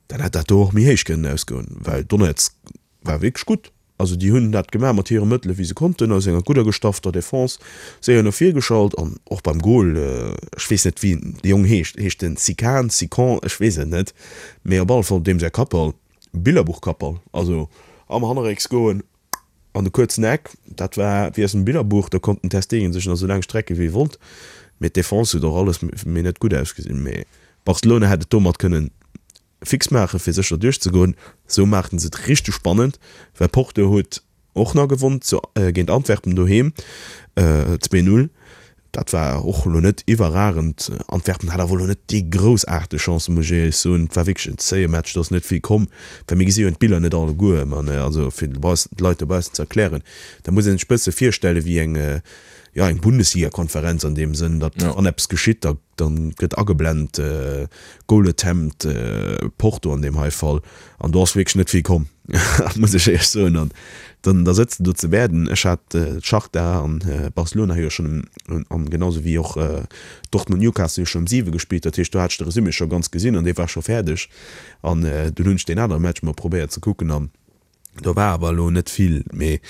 dann hätt dat do och méi héich kënnen ausgoen, well Donetsk war wierklech gutt. Also déi hunn dat gemaach mat hire Mëttele wéi se konnten, aus enger gudder gestaffter Defense, séier no vir geschalt an och beim Gol, ech weess net wéi de Jong heescht, heescht en Sikan, Sikon, ech weess et net, mee op alle Fall deem säi Kappball, Billerbuch-Kappball, also am Hannerrécks goen an de kuerzen Eck, dat war wéi aus dem Billerbuch, do konnt den Ter Stegen sech nach esou laang strecke wéi e wollt, mee d'Defense huet och alles méi net gutt ausgesinn, mee Barcelona hätt et domat kënnen fix maachen fir sécher duerchzegoen. Sou maachen se et richteg spannend, well Porto huet och nach gewonn zu géint Antwerpen doheem 2, 0. Dat war och elo net iwwerragend. Antwerpen hat awer elo net déi groussaarteg Chancen, muss ech éierlech soen. Et war wierklech en zéie Match, do ass net vill komm. Well mir gesi jo d'Biller net alleguer, ma also fir d'Leit dobaussen ze erklären, da muss ee sech e bësse virstelle wéi eng, jo eng Bundesligakonferenz an deem Sënn, datt wann eppes geschitt, da gëtt ageblent, Goal attempt Porto an deem hei Fall. An do ass wierklech net vill komm, muss ech éierlech soen. An dann da sëtzt de do zu Werden. Ech hat Shakhtar an Barcelona hu jo schonn um, an genau sou wéi och Dortmund Newcastle hu schonn um 7 gespillt. Dat heescht, do hat ech de Resumé scho ganz gesinn an dee war scho fäerdeg. An dunn hunn ech deen anere Match mol probéiert ze kucken an do war awer elo net vill. Mee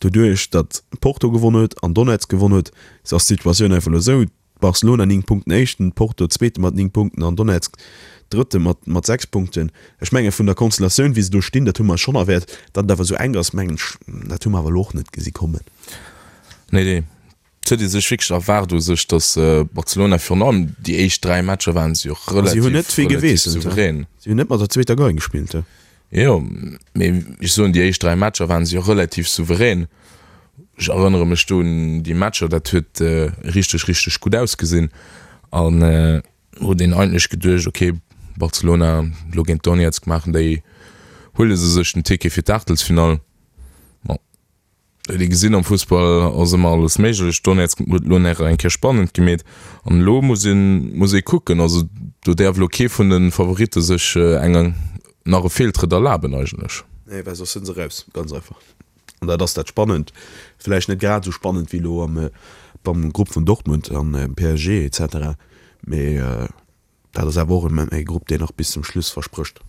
doduerch, datt Porto gewonn huet an Donetsk gewonn huet, ass d'Situatioun einfach elo esou, Barcelona 9 Punkten éischten, Porto zweete mat 9 Punkten an Donetsk drëtte mat mat 6 Punkten. Ech menge vun der Konstellatioun wéi se do stinn, dat hu mer schonn erwäert. Datt et awer esou enk ass, mengen ech, dat hu mer awer elo och net gesi kommen. Nee, nee, et huet ee sech wierklech erwaart u sech, datt Barcelona virun allem déi éischt 3 Matcher waren se jo relativ, Si hunn net vill relativ souverän. Si hunn net mat der zweeter Gei gespillt. Jo, mee ech soen, déi éischt 3 Matcher waren se jo relativ souverän. Ech erënnere mech do un déi Matcher, dat huet richteg, richteg gutt ausgesinn. An huet een eigentlech geduecht, ok, Barcelona elo géint Donetsk maachen déi, huele se sech den Ticket fir d'Aachtelsfinall. Bon. Huet ee gesinn, am Fussball ass ëmmer alles méiglech. Donetsk huet elo nach eng Kéier spannend gemeet an elo muss een, muss ee kucken. Also do däerf elo kee vun de Favoritte sech eng, nach e Feeltrëtt erlaben eigentlech. Nee, well soss sinn se raus, ganz einfach. An dat ass dat Spannend. Vläicht net grad esou spannend wéi elo am, beim Grupp vun Dortmund an PSG et cetera, mee Dat ass awer och e Grupp, deen nach bis zum Schluss versprécht.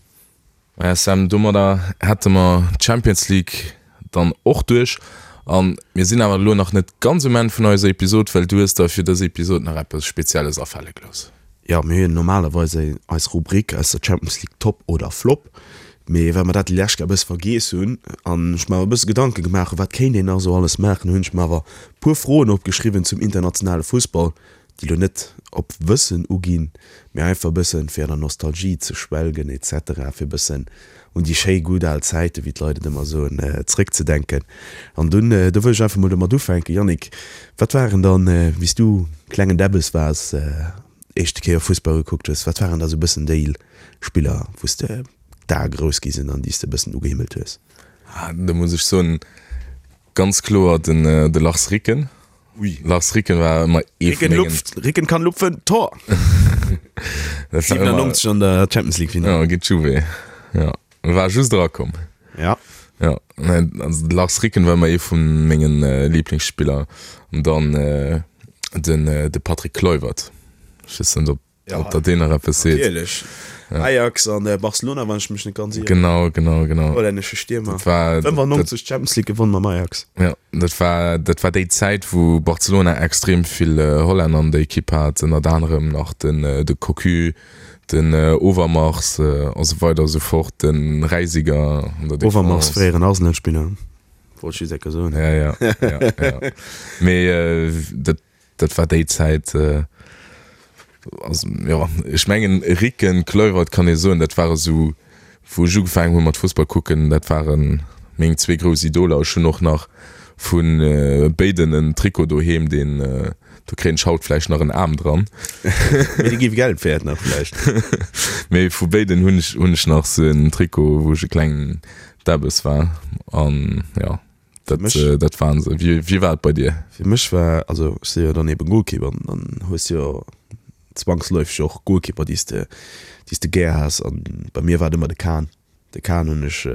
Maja Sam, domadder hätte mer d'Champions League dann och duerch. A mir sinn awer elo nach net ganz um Enn vun eiser Episod, well du hues der fir dës Episod nach eppes Spezielles afale gelooss. Jo, mir hunn normalerweis eis Rubrik aus der Champions League Top oder Flop, mee well mer dat déi lescht Kéier e bësse vergiess hunn an ech mer awer e bësse Gedanke gemaach hunn, wat kéint een nach esou alles maachen, hunn ech mer awer e puer Froen opgeschriwwen zum internationale Fussball, déi lo net op Wëssen uginn, mee einfach e bëssen fir an der Nostalgie ze schwelgen etc, fir e bëssen un déi schéi gutt al Zäiten, wéi d'Leit et ëmmer soen, zréckzedenken. An dunn, do wëll ech einfach mol domat ufänken, Yannick, wat waren dann, wéi s du klengen Däbbes waars, éischte Kéier Fussball gekuckt hues, wat waren da sou e bëssen déi Spiller, wou s de d'Ae grouss gi sinn an déi s de e bëssen ugehimmelt hues? Do muss ech soen, ganz kloer den de Lars Ricken. Ui. Lars Ricken war ëmmer ee vun mengen. Ricken kann lupfen, Tor! Dat war ëmmer. 97 an der Champions League Final. Ja, géint Juve. Ja, war just erakomm. Ja. Ja, nee, also de Lars Ricken war ëmmer ee vu mengen Lieblingsspiller. An dann den de Patrick Kluivert. Ech weess net, ob. Ja, Ob der deen nach eppes seet. Natierlech. Ja. Ajax an äh, Barcelona, wann ech mech net ganz ieren. Genau, genau, genau. Hollännesche Stiermer. Dat war, 95 Champions League gewonnen mam Ajax. Ja, dat war, dat war déi Zäit, wou Barcelona extrem vill äh, Hollänner an der Ekipp hat, ënnert anerem nach den, äh, de Cocu, den äh, Overmars äh, a sou weider a sou fort, den Reisiger an der Defense. Overmars, fréieren Arsenal-Spiller, wollt ech just eng Kéier soen. Ja, ja, ja, ja. Mee äh, dat, Dat war déi Zäit, also jo, ech mengen Ricken, Kluivert kann ee soen, dat ware sou, wou ech ugefaangen hu mat Fussball kucken, dat ware meng zwee grouss Idoler. Ech hunn och nach vu béiden en Trikot doheem, deen, do kréien ech haut vläicht nach en Aarm dran. Mee dee géif Geld wäert nach vläicht. Mee vu béiden hunn ech, hunn ech nach sou en Trikot, wou ech e klengen Debbes war an jo. Dat, Mech- äh, dat waren se. Wie, wie war et bei dir? Fir mech war, also ech si jo dann eben Goalkeeper an dann hues jo zwangsläufeg och Goalkeeper déi s de, déi s de gär has an bei mir war et ëmmer de Kahn. De Kahn hunn ech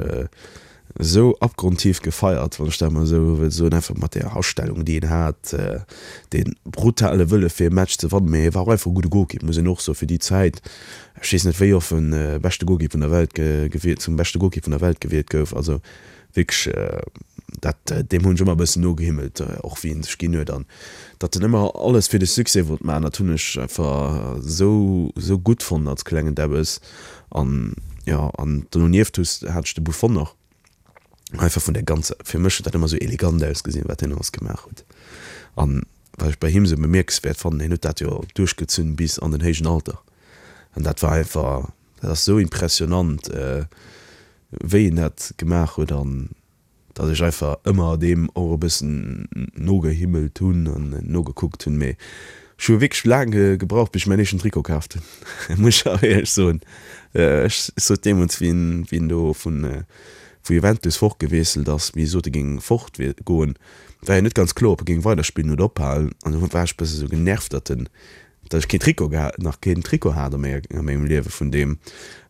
esou abgrundtief gefeiert, wann ech dat mol esou wëll soen, einfach mat där Astellung déi en hat, dee brutale Wëlle fir e Match ze wannen, mee hie war och einfach e gudde Goalkeeper, muss een och soen, fir déi Zäit. Ech weess net wéi oft en beschte Goalkeeper vun der Welt gewielt, zum beschte Goalkeeper vun der Welt gewielt gouf, also Wierklech, dat, deem hunn ech ëmmer e bëssen nogehimmelt, och wéi en sech ginn huet an datt en ëmmer alles fir de Succès wollt maachen, dat hunn ech einfach esou, esou gutt fonnt als klengen Debbes. An jo, an donieft hues, hat ech de Buffon nach, einfach vun der ganzer, fir mech huet dat ëmmer esou elegant ausgesinn, wat hien alles gemaach huet. An wat ech bei him esou bemierkenswäert fannen, hien huet dat jo duerchgezunn bis an den héijen Alter an dat war einfach, Dat ass sou impressionant wéi en dat gemaach huet an Datt ech einfach ëmmer deem och e bëssen nogehimmelt hunn an nogekuckt hunn. Mee ech hu wierklech laang gebraucht, bis ech mäin éischten Trikot kaaft hunn, muss ech awer éierlech soen. Ech sot deemools, wéi en, wéi en do vun, vu Juventus fortgewiesselt ass, wéi e sot, e géing fortgoen, war jo net ganz kloer, ob e géing weiderspillen oder ophalen. An du war ech e bësse sou genervt, datt en, datt ech keen Trikot gehat, nach keen Trikot hat a menger, a mengem Liewe vun deem.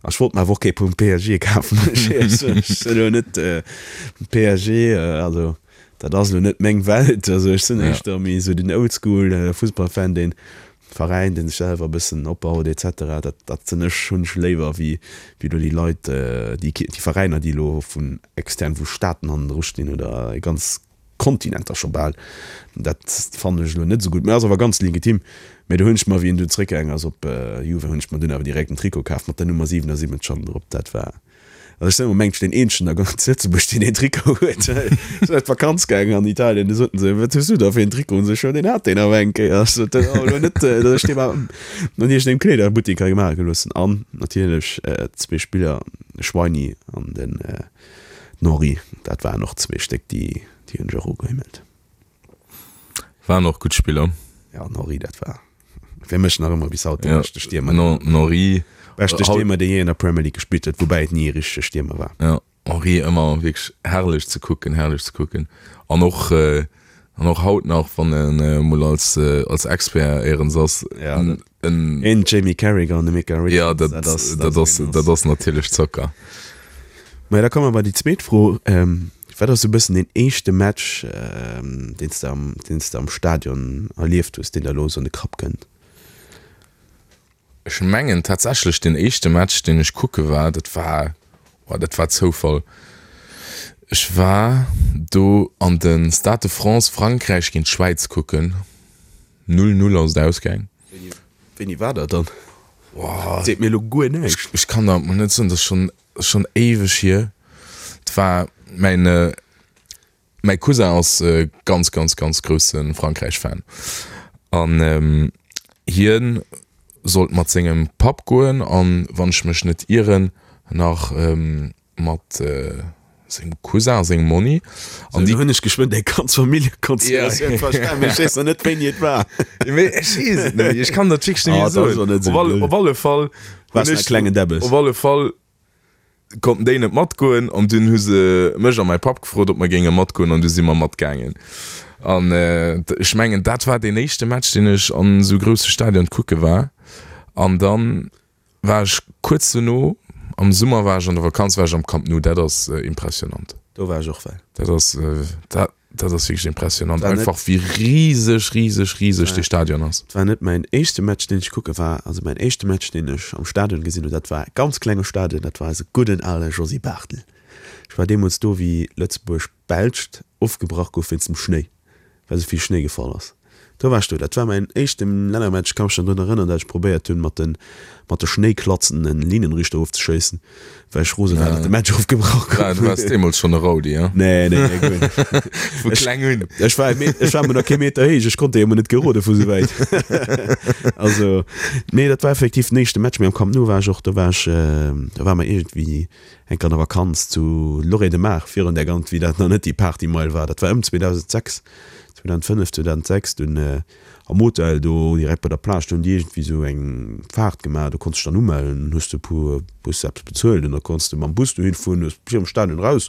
A ech wollt mer awer och kee vum PSG kafen, muss ech éierlech soen. Ech sinn elo net PSG, also dat ass elo net meng Welt. Also ech sinn éischter méi esou den Oldschool Fussballfan, deen Veräin, dee sech selwer e bëssen opbaut et cetera. Dat, dat sinn ech, hunn ech léiwer wéi, wéi elo déi Leit, déi, déi Veräiner, déi elo vun extern, vu Staaten hannendru stinn oder e ganz Kontinenter scho bal. Dat fannen ech elo net esou gutt, mä ass awer ganz legitim. Mä do hunn ech mer, wéi en dunn zréckgaangen ass op Juve, hunn ech mer dunn awer direkt en Trikot kaf mat der Nummer 77 hannen drop. Dat war, also ech sinn am Moment deen eenzegen a ganz Lëtzebuerg, deen deen Trikot huet. Ech sinn op d'Vakanz gaangen an Italien, du soten se, wat hues du da fir en Trikot? An ech sot, jo, deen hat deen awer eng Kéier. Ech sot, dat ass awer elo net, datt ech dee mer an iergendengem Kleederbuttek hei maache gelooss hunn. An natierlech zwee Spiller, de Schweini an den. Den Henri, dat waren och zwee Stéck, déi déi hunn ech och ugehimmelt. Waren och gutt Spiller. Ja, den Henri, dat war fir mech nach ëmmer bis haut de Ja, beschte Stiermer. den Henri. Beschte Stiermer, dee jee an der Premier League gespillt huet, woubäi et ni e richtege Stiermer war. Ja, Henri ëmmer wierklech herrlech ze kucken, herrlech ze kucken. An och, an och haut nach, wann en emol als, als Expert éierens ass, Ja, dat. En en Jamie Carragher an de Micah Richards, ja, dat, dat ass, dat ass, dat ass natierlech Zocker. Maja, da komme mer bei déi zweet Fro. Ähm, wat ass sou e bëssen deen éischte Match, ähm, deen s de am, deen s de am Stadion erlieft hues, deen der elo sou an de Kapp kënnt? Ech mengen tatsächlech deen éischte Match, deen ech kucke war, dat war, oh, dat war Zoufall. Ech war do an de Stade de France Frankräich géint d'Schwäiz kucken. 0, 0 ass et ausgaang. Wéini war dat dann? Seet mir elo guer näischt. Ech kann der mol net soen, dat ass schonn, schonn éiweg hier. Et war mäin, mäi Cousin ass ganz, ganz, ganz grousse Frankräich-Fan an hien sollt mat sengem Papp goen an, wann ech mech net ieren, nach mat sengem Cousin a sengem Monni. An déi hunn ech geschwënn deng ganz Familljekonstellatioun verstan, mee ech weess nach net wéini et war. Mee ech weess et net méi, ech kann dat wierklech net méi soen. Op alle, op alle Fall hunn ech, klengen Debbes. Op alle Fall konnten déi net matgoen an dunn hu se mech a mäi Papp gefrot, ob mer géinge matgoen an du si mer matgaangen. An ech mengen, dat war deen éischte Match, deen ech an esou grousse Stadion kucke war. An dann War ech kuerz dono, am Summer war ech an der Vakanz, war ech am Camp Nou, dat ass impressionant. Do war ech och well. Dat ass, dat, dat ass wierklech impressionant, War net- einfach wéi riseg, riseg, riseg dee Stadion ass. Et war net mäin éischte Match, deen ech kucke war, also mäin éischte Match, deen ech am Stadion gesinn hunn, dat war e ganz klenge Stadion, dat war eise gudden ale Josy Barthel. Ech war deemools do, wéi Lëtzebuerg-Belscht ofgebrach gouf wéinst dem Schnéi. well sou vill Schnéi gefall ass. Do war ech do. Dat war mäin éischte Lännermatch. Ech ka mech nach drun erënneren, dat ech probéiert hunn, mat de mat de Schnéiklatzen en Linienrichter ofzeschéissen, well ech rose war, datt de Match ofgebrach gouf. Du waars deemools schonn e Rowdy, ja? Nee, nee, nee, guer net. Vu kleng un. Ech war e Meter, ech war emol nach kee Meter héich, ech konnt déi emol net gerode vu sou wäit. Also, nee, dat war effektiv den éischte Match. Mee am Camp Nou war ech och, do war ech, do ware mer iergendwéi Eng Kéier an der Vakanz zu Lloret de Mar, virun där ganz, wéi dat nach net déi Partymeil war, dat war ëm 2006, 2005, 2006, dunn am Hotel do direkt bei der Plage, do hunn déi iergendwéi esou eng Faart gemaach, do konns de dech dann umellen, hues de e puer, hues de eppes bezuelt an da konns de mam Bus dohin fueren, hues virum Stadion eraus,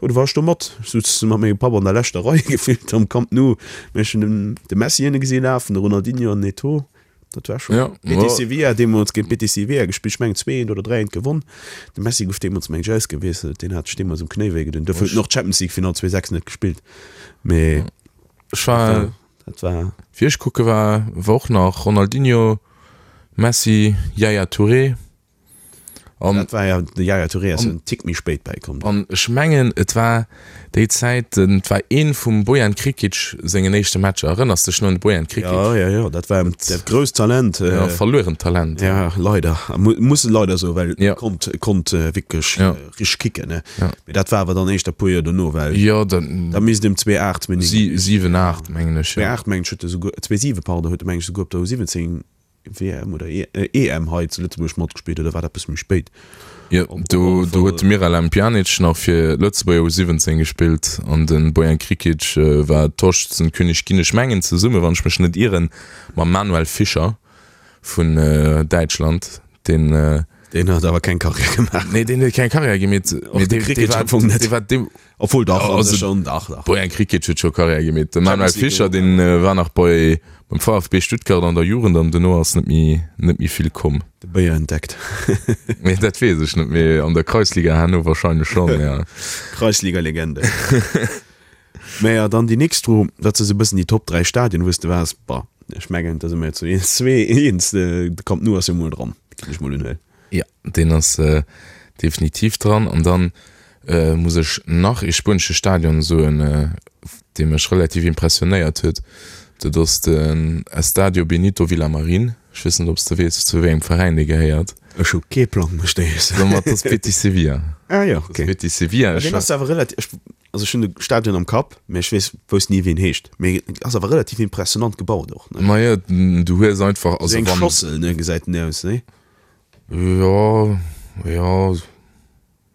jo do war ech do mat, ech sutz mat mengem Papp an der leschter Rei gefillt am Camp Nou, mä ech hunn den de Messi ënne gesi lafen, de Ronaldinho an den Eto'o. Dat war schon. Ja, Betis Sevilla deemools géint Betis Sevilla gespillt. Ech mengen 2-1 oder 3-1 gewonn. De Messi gouf deemools meng ech ausgewiesselt. Deen hat sech deemools um Knéi wéi gedoen. Dofir huet en och d'Champions League Final 2006 net gespillt. Mee Ech war, dat war. Wéi ech kucke war, war och nach Ronaldinho, Messi, Yaya Touré. An, dat war ja, de Yaya Touré ass en Tick méi spéit bäikomm. An ech mengen, et war déi Zäit, et war ee vum Bojan Krikic sengen éischte Matcher. Erënners dech nach un de Bojan Krikic? Jo, jo, jo, dat war dat grousst Talent. Ja, verluerent Talent. Ja, leider. Muss e leider soen, well e konnt, e konnt wierklech richteg kicken, ne? Mee dat war awer dann éischter e puer Joer dono, well Jo, dann. Da misst em 2008, 2009. 7, 8, mengen ech, jo. 2008, mengen ech, huet e souguer, 2007, pardon, huet e, mengen ech, souguer op der U17. WM oder EM hei zu Lëtzebuerg matgespillt oder war dat bësse méi spéit? Jo, do do huet de Miralem Pjanic nach fir Lëtzebuerger U17 gespillt an de Bojan Krikic war Torschützenkönig ginn. Ech mengen zesumme, wann ech mech net ieren, mam Manuel Fischer vun Däitschland, deen. Deen huet awer keng Karriär gemaach. Nee, deen huet keng Karriär gemeet. Och de Krikic am Fong net. Obwuel dach, an sech schon, dach, dach. Bojan Krikic huet scho Karriär gemeet. De Manuel Fischer, deen war nach bei, beim VfB Stuttgart an der Jugend an duerno ass net méi, net méi vill komm. De Béier entdeckt. Nee, dat weess ech net, mee an der Kreisliga herno wahrscheinlech schonn, ja. Kreisliga-Legende. Mä ja, dann déi nächst Fro, wat si sou e bëssen déi Top 3 Stadien, wou s de waars? Bah, ech mengen, da si mer jo zu zwee eens, de Camp Nou ass jo mol dran, ginn ech mol unhuelen. Jo, deen ass definitiv dran. An dann muss ech nach ee spuenesche Stadion soen, dee mech relativ impressionéiert huet. Dat ass den Estadio Benito Villamarín. Ech weess net, ob s de weess, zu wéi engem Veräin dee gehéiert. Ech hu kee Plang, muss ech dir soen. Ma dat ass Betis Sevilla. Ah jo, okay. Betis Sevilla. Deen ass awer relativ, also ech hunn de Stadion am Kapp, mee ech weess, wousst ni, wéi en heescht. Mee ass awer relativ impressionant gebaut och, ne? Ma jo, du hues einfach, also wann. Esou eng Schossel, ne, gesäit den aus, ne? Jo, jo,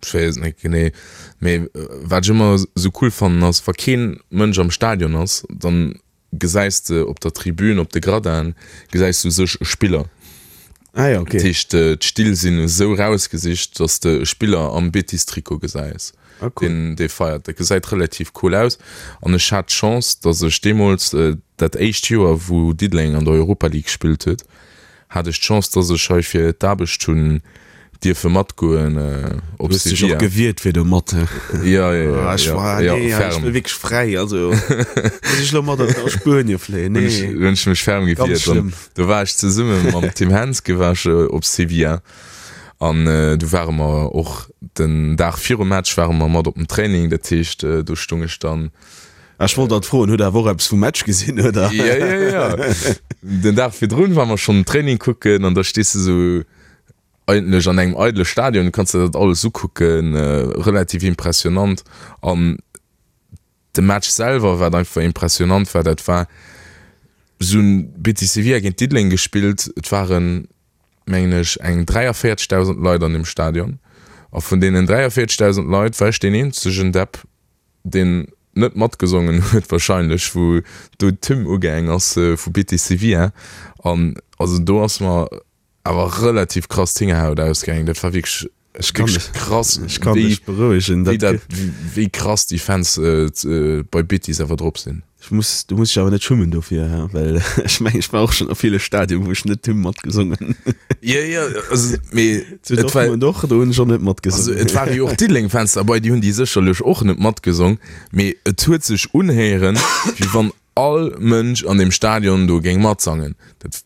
ech weess et net genee. Mee wat ech ëmmer esou cool fannen ass, wa keen Mënsch am Stadion ass, dann gesäis de op der Tribün, op de Gradinen, gesäis du sech e Spiller. Ah ja, okay. Dat heescht, d'Still sinn esou rausgesicht, dass de e Spiller am Betis-Trikot gesäis, ah, cool. deen dee feiert. Dat gesäit relativ cool aus. An ech hat d'Chance, dass ech deemools, dat éischt Joer, wou Diddeleng an der Europa League gespillt huet, hat ech d'Chance, dass ech hei fir d'Aarbecht hunn dierfe matgoen op Du hues dech och gewiert fir do mat, he? Jo, jo, jo, Ah, ech war, jo, nee, ech ferm. wëll wierklech fräi, also muss ech lo mat a Spuenie fléien, Hunn ech, nee. hunn ech mech ferm Ganz gewiert. An schlëmm. do war ech zesumme mam Tim Henske war ech op Sevilla an du ware mer och den Dag virum Match ware mer mat op dem Training, dat heescht do stung ech dann Ech wollt dat froen, hutt der awer och eppes vum Match gesinn, oder? Jo, jo, jo. Den Dag virdrun ware mer schonn den Training kucken an da stees de sou eigentlech an engem eidele Stadion, du kanns der dat alles ukucken, relativ impressionant. An de Match selwer, wat einfach impressionant war, dat war, se hunn Betis Sevilla géint Diddeleng gespillt, et waren, mengen ech, eng 43.000 Leit an deem Stadion a vun deenen 43.000 Leit war ech deen eenzegen Depp, deen net matgesongen huet wahrscheinlech, wou do d'Hymn ugaang ass vu Betis Sevilla an also do ass mer awer relativ krass d'Hingerhaut ausgaangen. Dat war wierklech Ech kann wierklech dech, krass, ech kann wéi dech berouegen, wéi dat dat wéi krass déi Fans bei Betis awer drop sinn. Ech muss, du muss dech awer net schummen dofir, he, well ech mengen, ech war och schonn a ville Stadien, wou ech net d'Hymn matgesongen hunn. Jo, jo, also mee Zu et war, Dortmund och, do hunn ech och net also matgesongen. et ware jo och Diddeleng-Fans derbei, déi hunn déi sécherlech och net matgesong, mee et huet sech unhéieren, wéi wann all Mënsch an deem Stadion do géing matsangen. Dat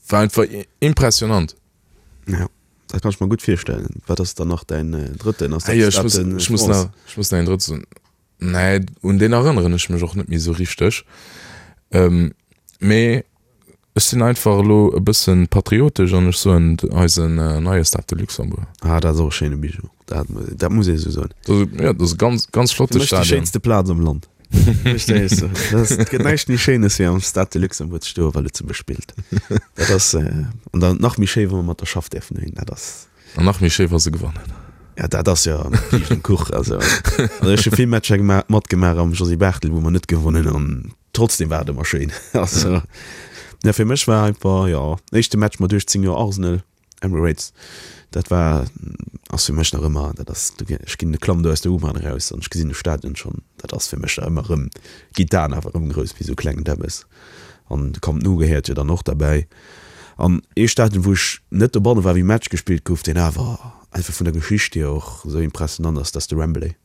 war einfach impressionant. Ja, dat kann ech mer gutt virstellen. Wat ass dann nach däin drëtten? Ass dat Ah jo, ech muss, Stade de ech muss France? nach, ech muss nach een drëtte soen. Nee, un deen erënneren ech mech och net méi esou richteg. Mee ech sinn einfach elo e bësse patriotesch an ech soen eisen neie Stade de Luxembourg. Ah, dat ass och e schéine Bijou, dat, dat muss ee esou soen. Dat ass, jo, dat ass e ganz, ganz flotte Fir mech déi Stadion. schéinste Plaz am Land. Muss ech dir éierlech soen. Dat ass, et gëtt näischt méi Schéines wéi am Stade de Luxembourg ze stoen, wa Lëtzebuerg spillt. Dat ass, an dann nach méi schéi, wa mer mat der Schaff däerfen dohin, dat ass. An nach méi schéi wa se gewannen. Ja dat ass jo Kiischt um Kuch. Also also ech hu vill Matcher gemaach, matgemaach am Josy Barthel wou mer net gewonnen hunn an trotzdem war et ëmmer schéin. Also ja fir mech war einfach jo éischte Match mat 18 Joer Arsenal, Emirates, dat war ass fir mech nach ëmmer dat ass ech ginn de Klamm do aus der U-Bahn eraus an ech gesinn de Stadion schonn, dat ass fir mech nach ëmmer erëm ginn d'Aen awer erëm grouss wéi sou klengen Däbbes. An de Camp Nou gehéiert jo dann och derbäi. An ee Stadion, wou ech net dobanne war, wéi Match gespillt gouf, deen awer einfach vun der Geschicht hier och esou impressionant ass, dat ass de Wembley.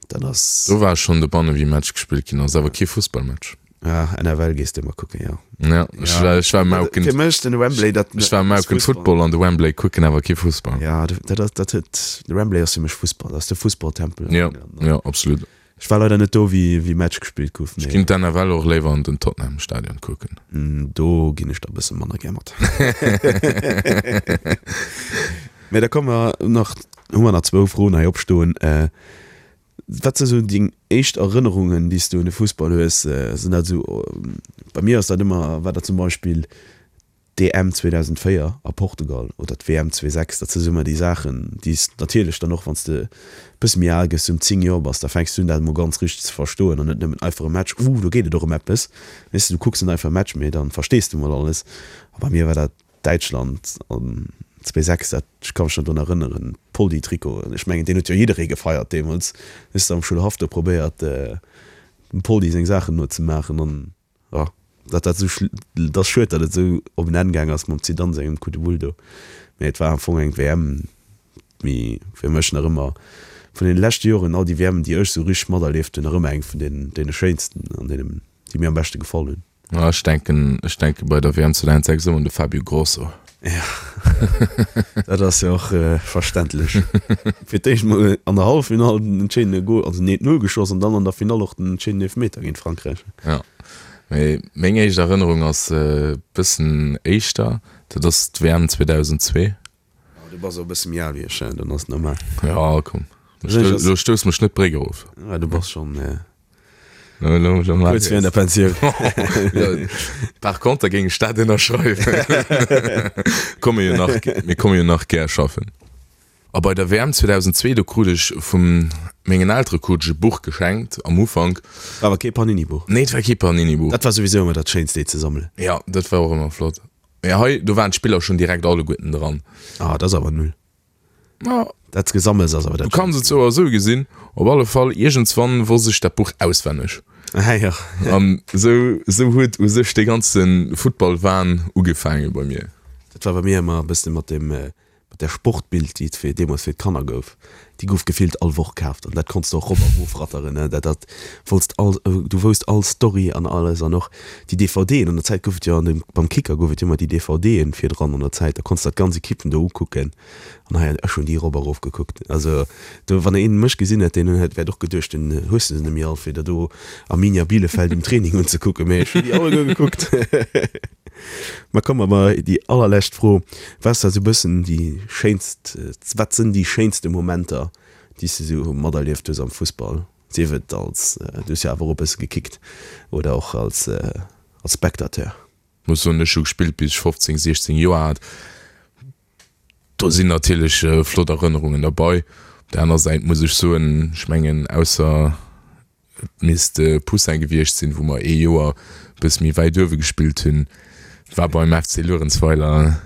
Dat ass. Do war ech schonn dobanne wéi Match gespillt ginn ass, awer kee Fussballmatch. Ah, NFL gees de ëmmer kucken, jo. Ja, ech war, ech war Mauken. Fir mech den Wembley, dat. Ech war Mauken Football an de Wembley kucken, awer kee Fussball. Ja, dat ass, dat huet, de Wembley ass fir mech Fussball, dat ass de Fussballtempel. Jo, jo, absolut. Ech war leider net do wéi wéi Match gespillt gouf, Ech ginn d'NFL och léiwer an den Tottenham Stadion kucken. Do ginn ech der e bësse manner gär mat. Mee da komme mer nach, hu mer nach zwou Froen hei opstoen. Wat si sou deng éischt Erënnerungen déi s du un de Fussball hues? Sinn dat esou, bei mir ass dat ëmmer, war dat zum Beispill. D'EM 2004 a Portugal oder d'WM 2006, dat si sou ëmmer déi Saachen, déi s natierlech dann och, wann s de e bësse méi al gëss, sou ëm 10 Joer bass, da fänks du un dat emol ganz richteg ze verstoen an net nëmmen einfach e Match, uh do geet et och ëm eppes, weess de, du kucks net einfach e Match, mee dann verstees du mol alles. A bei mir war dat Däitschland an 2006, dat, ech ka mech nach drun erënneren, Poldi-Trikot, ech mengen deen huet jo jidderee gefeiert deemools, hues de am Schoulhaff do probéiert dem Poldi seng Saachen nozemaachen an. Jo, datt dat esou, et ass schued, datt et esou op en Enn gaang ass mam Zidane sengem Coup de boule do, mee et war am Fong eng WM, déi fir mech nach ëmmer vun deene leschte Joren, all déi WMen, déi ech esou richteg materlieft hunn, nach ëmmer eng vun deenen, deene schéinsten an deenen, déi mir am beschte gefall hunn. Jo, ech denken, ech denke bei der WM 2006 ëmmer un de Fabio Grosso. Jo, dat ass jo och verständlech. Fir d'éischt mol an der Halleffinall den entscheedende Gol, also den 1-0 geschoss an dann an der Finall och den entscheedenden Eelefmeter géint Frankräich. Jo, mee meng éischt Erënnerung ass e bëssen éischter, dat ass d'WM 2002. Jo, du bass och e bësse méi al wéi ech, dann ass et normal. Jo, komm, lo stouss mech net d'Bréck erof. Jo, du bass schonn. Kuerz virun der Pensioun. Par contre géing ech dat ënnerschreiwen. Komme jo nach, mir komme jo nach gär schaffen. A bei der WM 2002, do krut ech vu mengen Eltere krut ech e Buch geschenkt am Ufank. War awer kee Panini-Buch. Nee, et war kee Panini-Buch. Dat war souwisou ëmmer dat Schéinst, déi ze sammelen. Jo, dat war och ëmmer flott. Mee hei, do waren d'Spiller schonn direkt alleguerten dran. Ah, dat ass awer null. Ma Dat Gesammels ass awer dat. Du kanns et sou a sou gesinn. Op alle Fall, iergendswann wosst ech dat Buch auswenneg. Ah jo. An sou, sou huet u sech dee ganze Futtballwahn ugefaange bei mir. Dat war bei mir ëmmer e bëssen mat dem, mat der Sportbild, déi et fir, deemools fir d'Kanner gouf. Déi gouf gefillt all Woch kaaft an dat konns de och rop a rofratteren, ne. Dat, dat wollts all, du wousst all Story an alles an och déi DVDen. An der Zäit gouf et jo an dem, beim Kicker gouf et jo ëmmer déi DVDen virdran an der Zäit, da konns de dat ganz Equippen do ukucken. An hei, ech hunn déi erop a rof gekuckt. Also do, wann een mech gesinn hätt, deen hätt wäert och geduecht, den hues de se net méi all, fir der do Arminia Bielefeld um Training unzekucken. Mee ech hunn déi alleguer gekuckt. Ma komme mer bei déi allerlescht Fro, Wat ass da sou bëssen déi schéinst, wat sinn déi schéinste Momenter, déi s de sou materlieft hues am Fussball, sief et als, du hues jo awer och e bësse gekickt, oder och als als Spectateur? Muss soen, ech hu gespillt bis ech 15, 16 Joer hat. Do sinn natierlech flott Erënnerungen derbei. Op der aner Säit muss ech soen, ech mengen ausser et misst de Poussin gewiescht sinn, wou mer ee Joer e bësse méi wäit uewe gespillt hunn, war beim FC Luerenzweiler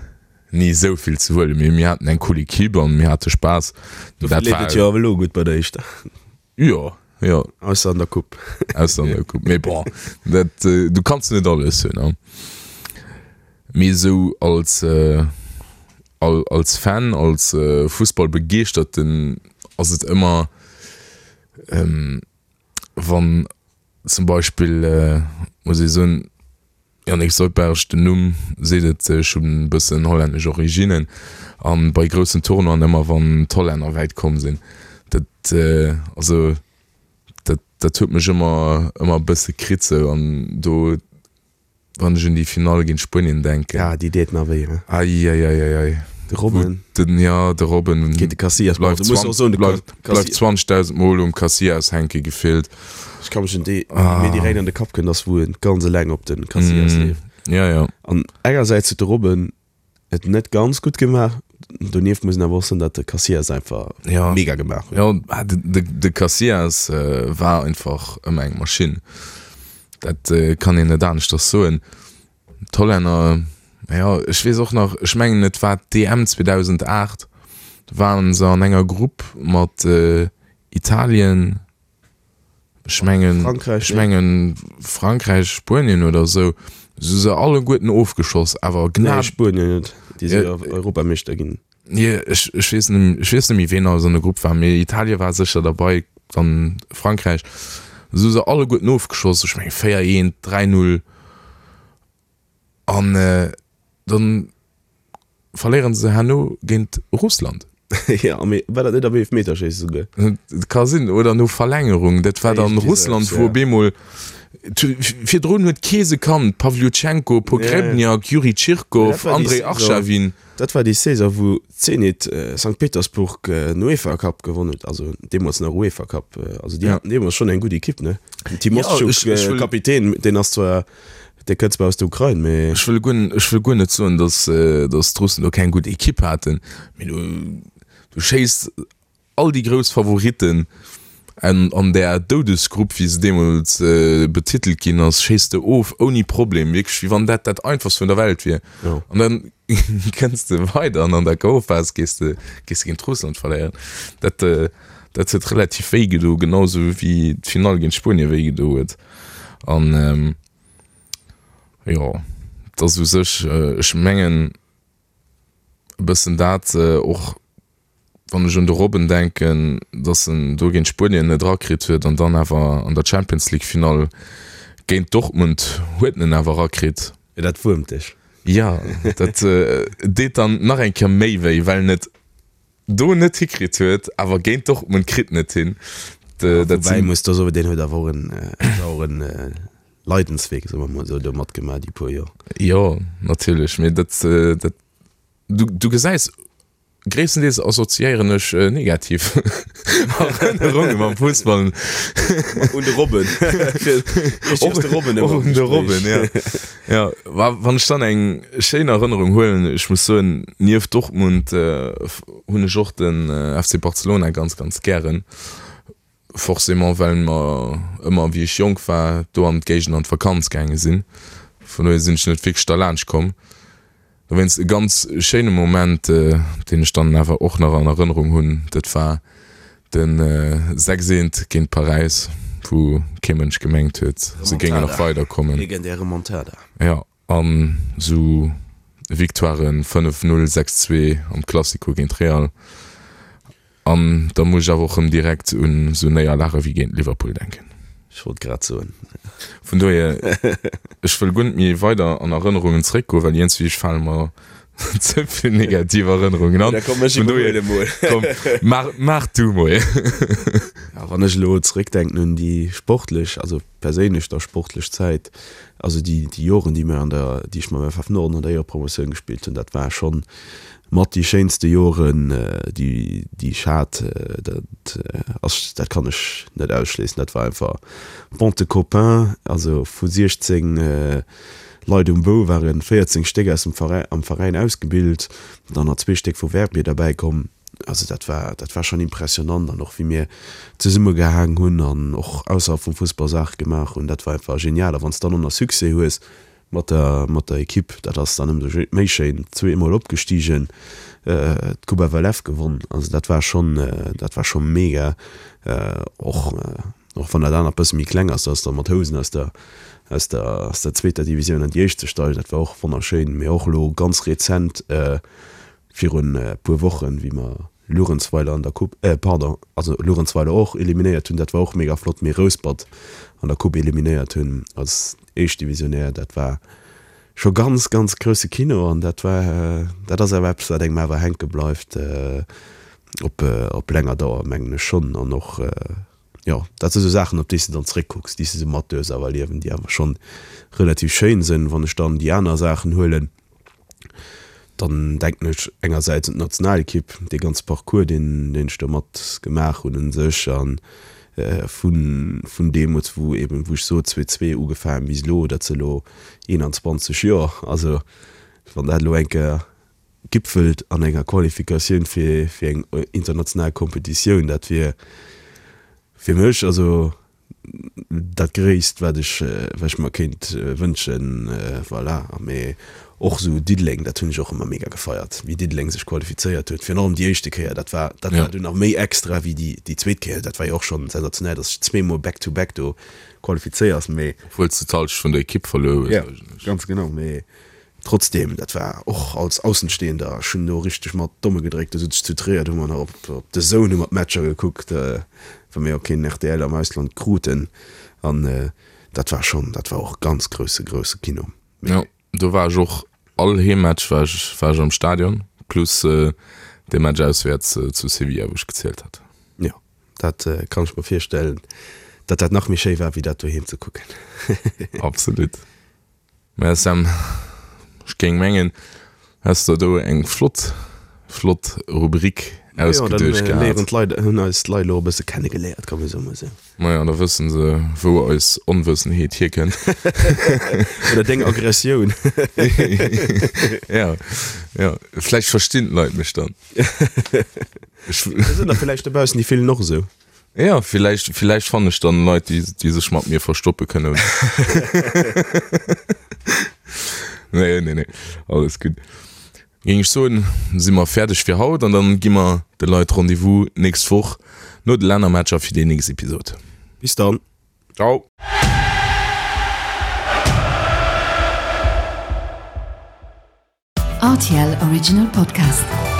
ni esou vill ze huelen. Mee mir haten eng cool Equipe an mir hate Spaass. Dofir leeft et jo awer elo gutt bei der Éischter. Jo, jo. Ausser an der Coupe. Ausser an der Coupe. Mee bon, dat, du kanns net alles hunn, ne? Mee esou als, als Fan, als Fussballbegeeschterten ass et ëmmer, wann zum Beispill, muss ee soen, Yannick Soldberg, den Numm seet et, ech hunn e bëssen hollännesch Originnen an bei groussen Tournoien ëmmer wann d'Hollänner wäit komm sinn, dat also dat dat huet mech ëmmer ëmmer e bësse kritt sou an do wann ech un déi Finall géint Spuenien denken. Ah déi deet nach wéi, he? Eieieiei. De Robben. Den, jo, de Robben. Géint de Casillas, bon du muss och soen de Bleift 20.000 Mol um Casillas hänke gefillt. Ech ka mech un déi, déi mir direkt an de Kapp kënnt, ass wou en ganz eleng op de Casillas leeft. Ja, ja. An engersäits huet de Robben et net ganz gutt gemaach, donieft muss een awer och soen, datt de Casillas einfach ja. mega gemaach huet. Ja, de, de, de Casillas war einfach ëmmer eng Maschinn. Dat kann een net aneschters soen. D'Hollänner, jo, ech weess och nach, ech mengen et war d'EM 2008, do waren se an enger Grupp mat Italien, ech mengen, Frankräich, ech mengen Frankräich, Spuenien oder esou, se hu se alleguerten ofgeschoss, awer Nee, gnad. Spuenien net, déi si jo Europameeschter ginn. Nee, ech, ech weess net, ech weess net méi ween alles an der Grupp war, mee Italien war sécher derbei, dann Frankräich, se hu se alleguerten ofgeschoss, ech mengen 4, 1, 3, 0 an dann verléieren se herno géint Russland. Jo, mee war dat net am Eelefmeterschéisse souguer? Ka sinn, oder no Verlängerung. Dat war dann Russland, wou op eemol, virdrun huet kee se kannt, Pavlyuchenko, Pogrebnjak, Juri Tschirkow, Andrei Arshavin. Dat war déi Saison, wou Zenit Sankt Petersburg den UEFA Cup gewonnen huet, also deemools nach UEFA Cup. Also déi haten deemools schonn eng gutt Ekipp, ne? Den Timoschtschuk, Kapitän, deen ass zwar. Dee kënnt zwar aus der Ukrain, mee. Ech wëll guer, ech wëll guer net soen, datt, datt d'Russen do keng gutt Ekipp haten, mee du, du schéiss all déi grouss Favoritten an, an där Doudesgrupp, wéi se deemools betitelt ginn ass, schéiss de of ouni Problem, wierklech wéi wann dat dat einfachst vun der Welt wier. An dann kënns de weider an an der K.O.-Phas gees de, gees de géint Russland verléieren. Dat, dat huet relativ wéi gedo, genau sou wéi d'Finall géint Spuenie wéi gedo huet. An jo, et ass u sech, ech mengen e bëssen dat och, wann ech un de Robben denken, datt en do géint Spuenien net erakritt huet an dann awer an der Champions League Finall géint Dortmund huet en en awer erakritt. Jo, dat wuermt dech. Jo, dat deet dann nach eng Kéier méi wéi, well en et do net hikritt huet, awer géint Dortmund kritt en et hin. Ja, woubäi muss do soen, deen huet awer och en sauren Leidenswee, soe mer mol esou, do matgemaach déi puer Joer. Jo, natierlech, mee dat, dat, du, du gesäis, gréisstendeels assoziéieren ech negativ Erënnerunge mam Fussball. Un de Robben. Och un de Robben, ja. Ja, wann ech dann eng schéin Erënnerung huelen, ech muss soen, nieft Dortmund hunn ech och den FC Barcelona ganz, ganz gären. Forcément well mer ëmmer, wéi ech jonk war, do an d'Géigend an d'Vakanz gaange sinn. Vun dohier sinn ech net wierklech derlaanscht komm. Dowéinst e ganz schéine Moment, deen ech dann awer och nach an Erënnerung hunn, dat war de 6 eent géint Paräis, wou kee Mënsch gemengt huet, se géingen nach weiderkommen. Legendär Remontada. Jo, an esou Victoiren 5, 0, 6, 2 am Classico géint Real. An da muss ech awer och rëm direkt un esou Néierlage wéi géint Liverpool denken. Ech wollt grad soen. Vun dohier, ech wëll guer net méi weider an Erënnerungen zeréckgoen, well iergendwéi fale mer ze vill negativ Erënnerungen an. Da komm, ech iwwerhuele mol. Komm, maach, maach du mol. Ja, wann ech elo zeréckdenken un déi sportlech, also perséinlech da sportlech Zäit, also déi, déi Joren, déi mir an der, déi ech mam FF Norden an der Éierepromotioun gespillt hunn, dat war schonn mat déi schéinste Joren, déi, déi ech hat. Dat ass, dat kann ech net ausschléissen. Dat war einfach bande de copains, also vu 16 Leit um Bou waren 14 Stéck aus dem Veräin, am Veräin ausgebilt, dann nach zwee Stéck vu Verbier derbäi komm. Also dat war, dat war schonn impressionant an och wéi mir zesummegehaang hunn an och ausserhalb vum Fussball Saache gemaach hunn, dat war einfach genial. A wann s de dann och nach Succès hues mat der, mat der Ekipp, dat ass dann ëmsou méi schéin. Zweemol opgestigen, d'Coupe FLF gewonn, also dat war schonn, dat war scho mega. Och, och wann dat anert bësse méi kleng ass, dat ass da mat Housen aus der, aus der, aus der zweeter Divisioun an déi éischt ze steigen, dat war och wonnerschéin. Mee och elo ganz rezent, Virun e puer Wochen, wéi mer Luerenzweiler an der Coupe, äh pardon, also Luerenzweiler och eliminéiert hunn, dat war och mega flott, mee Rouspert an der Coupe eliminéiert hunn als Éischtdivisionär, dat war scho ganz, ganz grousse Kino an dat war, dat ass awer eppes, wat engem awer hänke bleift op, op länger Dauer, mengen ech schonn. An och, jo, dat si sou Saachen, op déi s de dann zréckkucks, déi s de sou mat duerfs awer erliewen, déi awer schonn relativ schéin sinn. Wann ech dann déi aner Saachen huelen, Dann denken ech engersäits un d'Nationalekipp, dee ganze Parcours, deen deen ech do mat gemaach hunn u sech a vun vun deemools, wou eeben, wou ech sot, 2002 ugefaangen bis elo, dat si elo 21 Joer. Also wann dat elo eng Kéier gipfelt an enger Qualifikatioun fir fir eng international Kompetitioun, dat wier fir mech also dat Gréisst, wat ech, wat ech mer kéint wënschen, voilà. Mee och esou Diddeleng, dat hunn ech och ëmmer mega gefeiert, wéi Diddeleng sech qualifizéiert huet, virun allem déi éischte Kéier, dat war, dat war dunn nach méi extra wéi déi, déi zweet Kéier. Dat war jo och schonn sensationell, datt s de zweemol back to back do qualifizéiers, mee. Obwuel s de d'Halschent vun der Ekipp verluer hues eigentlech. Jo, ganz genau, mee Trotzdem, dat war och als Aussenstehender, ech hunn do richteg mat d'Domme gedréckt, do sot ech zu Tréier, do hu mer nach op op DAZN hu mer d'Matcher gekuckt, well mir jo keen rtl am Ausland kruten an dat war schonn, dat war och ganz grousse grousse Kino. Jo, do war ech och, all Heemmatch war ech war ech am Stadion, plus dee Match auswäerts zu Sevilla, wou ech gezielt hat. Jo, dat kann ech mer virstellen, datt dat nach méi schéi war wéi dat doheem ze kucken. Absolut. Mä Sam, ech géing mengen, häss der do eng flott, flott Rubrik ausgeduecht gehat. Léieren d'Leit, hunn eis d'Leit elo e bësse kennegeléiert, kann ee soen esou. Maja, da wëssen se, wou eis Onwëssenheet hierkënnt. Oder deng Aggressioun. Ja, ja, vläicht verstinn d'Leit mech dann. Ech. Da sinn der villäicht dobaussen, déi fillen och esou. Ja, villäicht, villäicht fannen ech dann Leit, déi, déi sech mat mir verstoppe kënnen. Nee, nee, nee, alles gutt. Géing ech soen, si mer fäerdeg fir haut an dann gi mer de Leit Rendez-vous nächst Woch no de Lännermatcher fir déi nächst Episod. Bis dann. Ciao. RTL Original Podcast.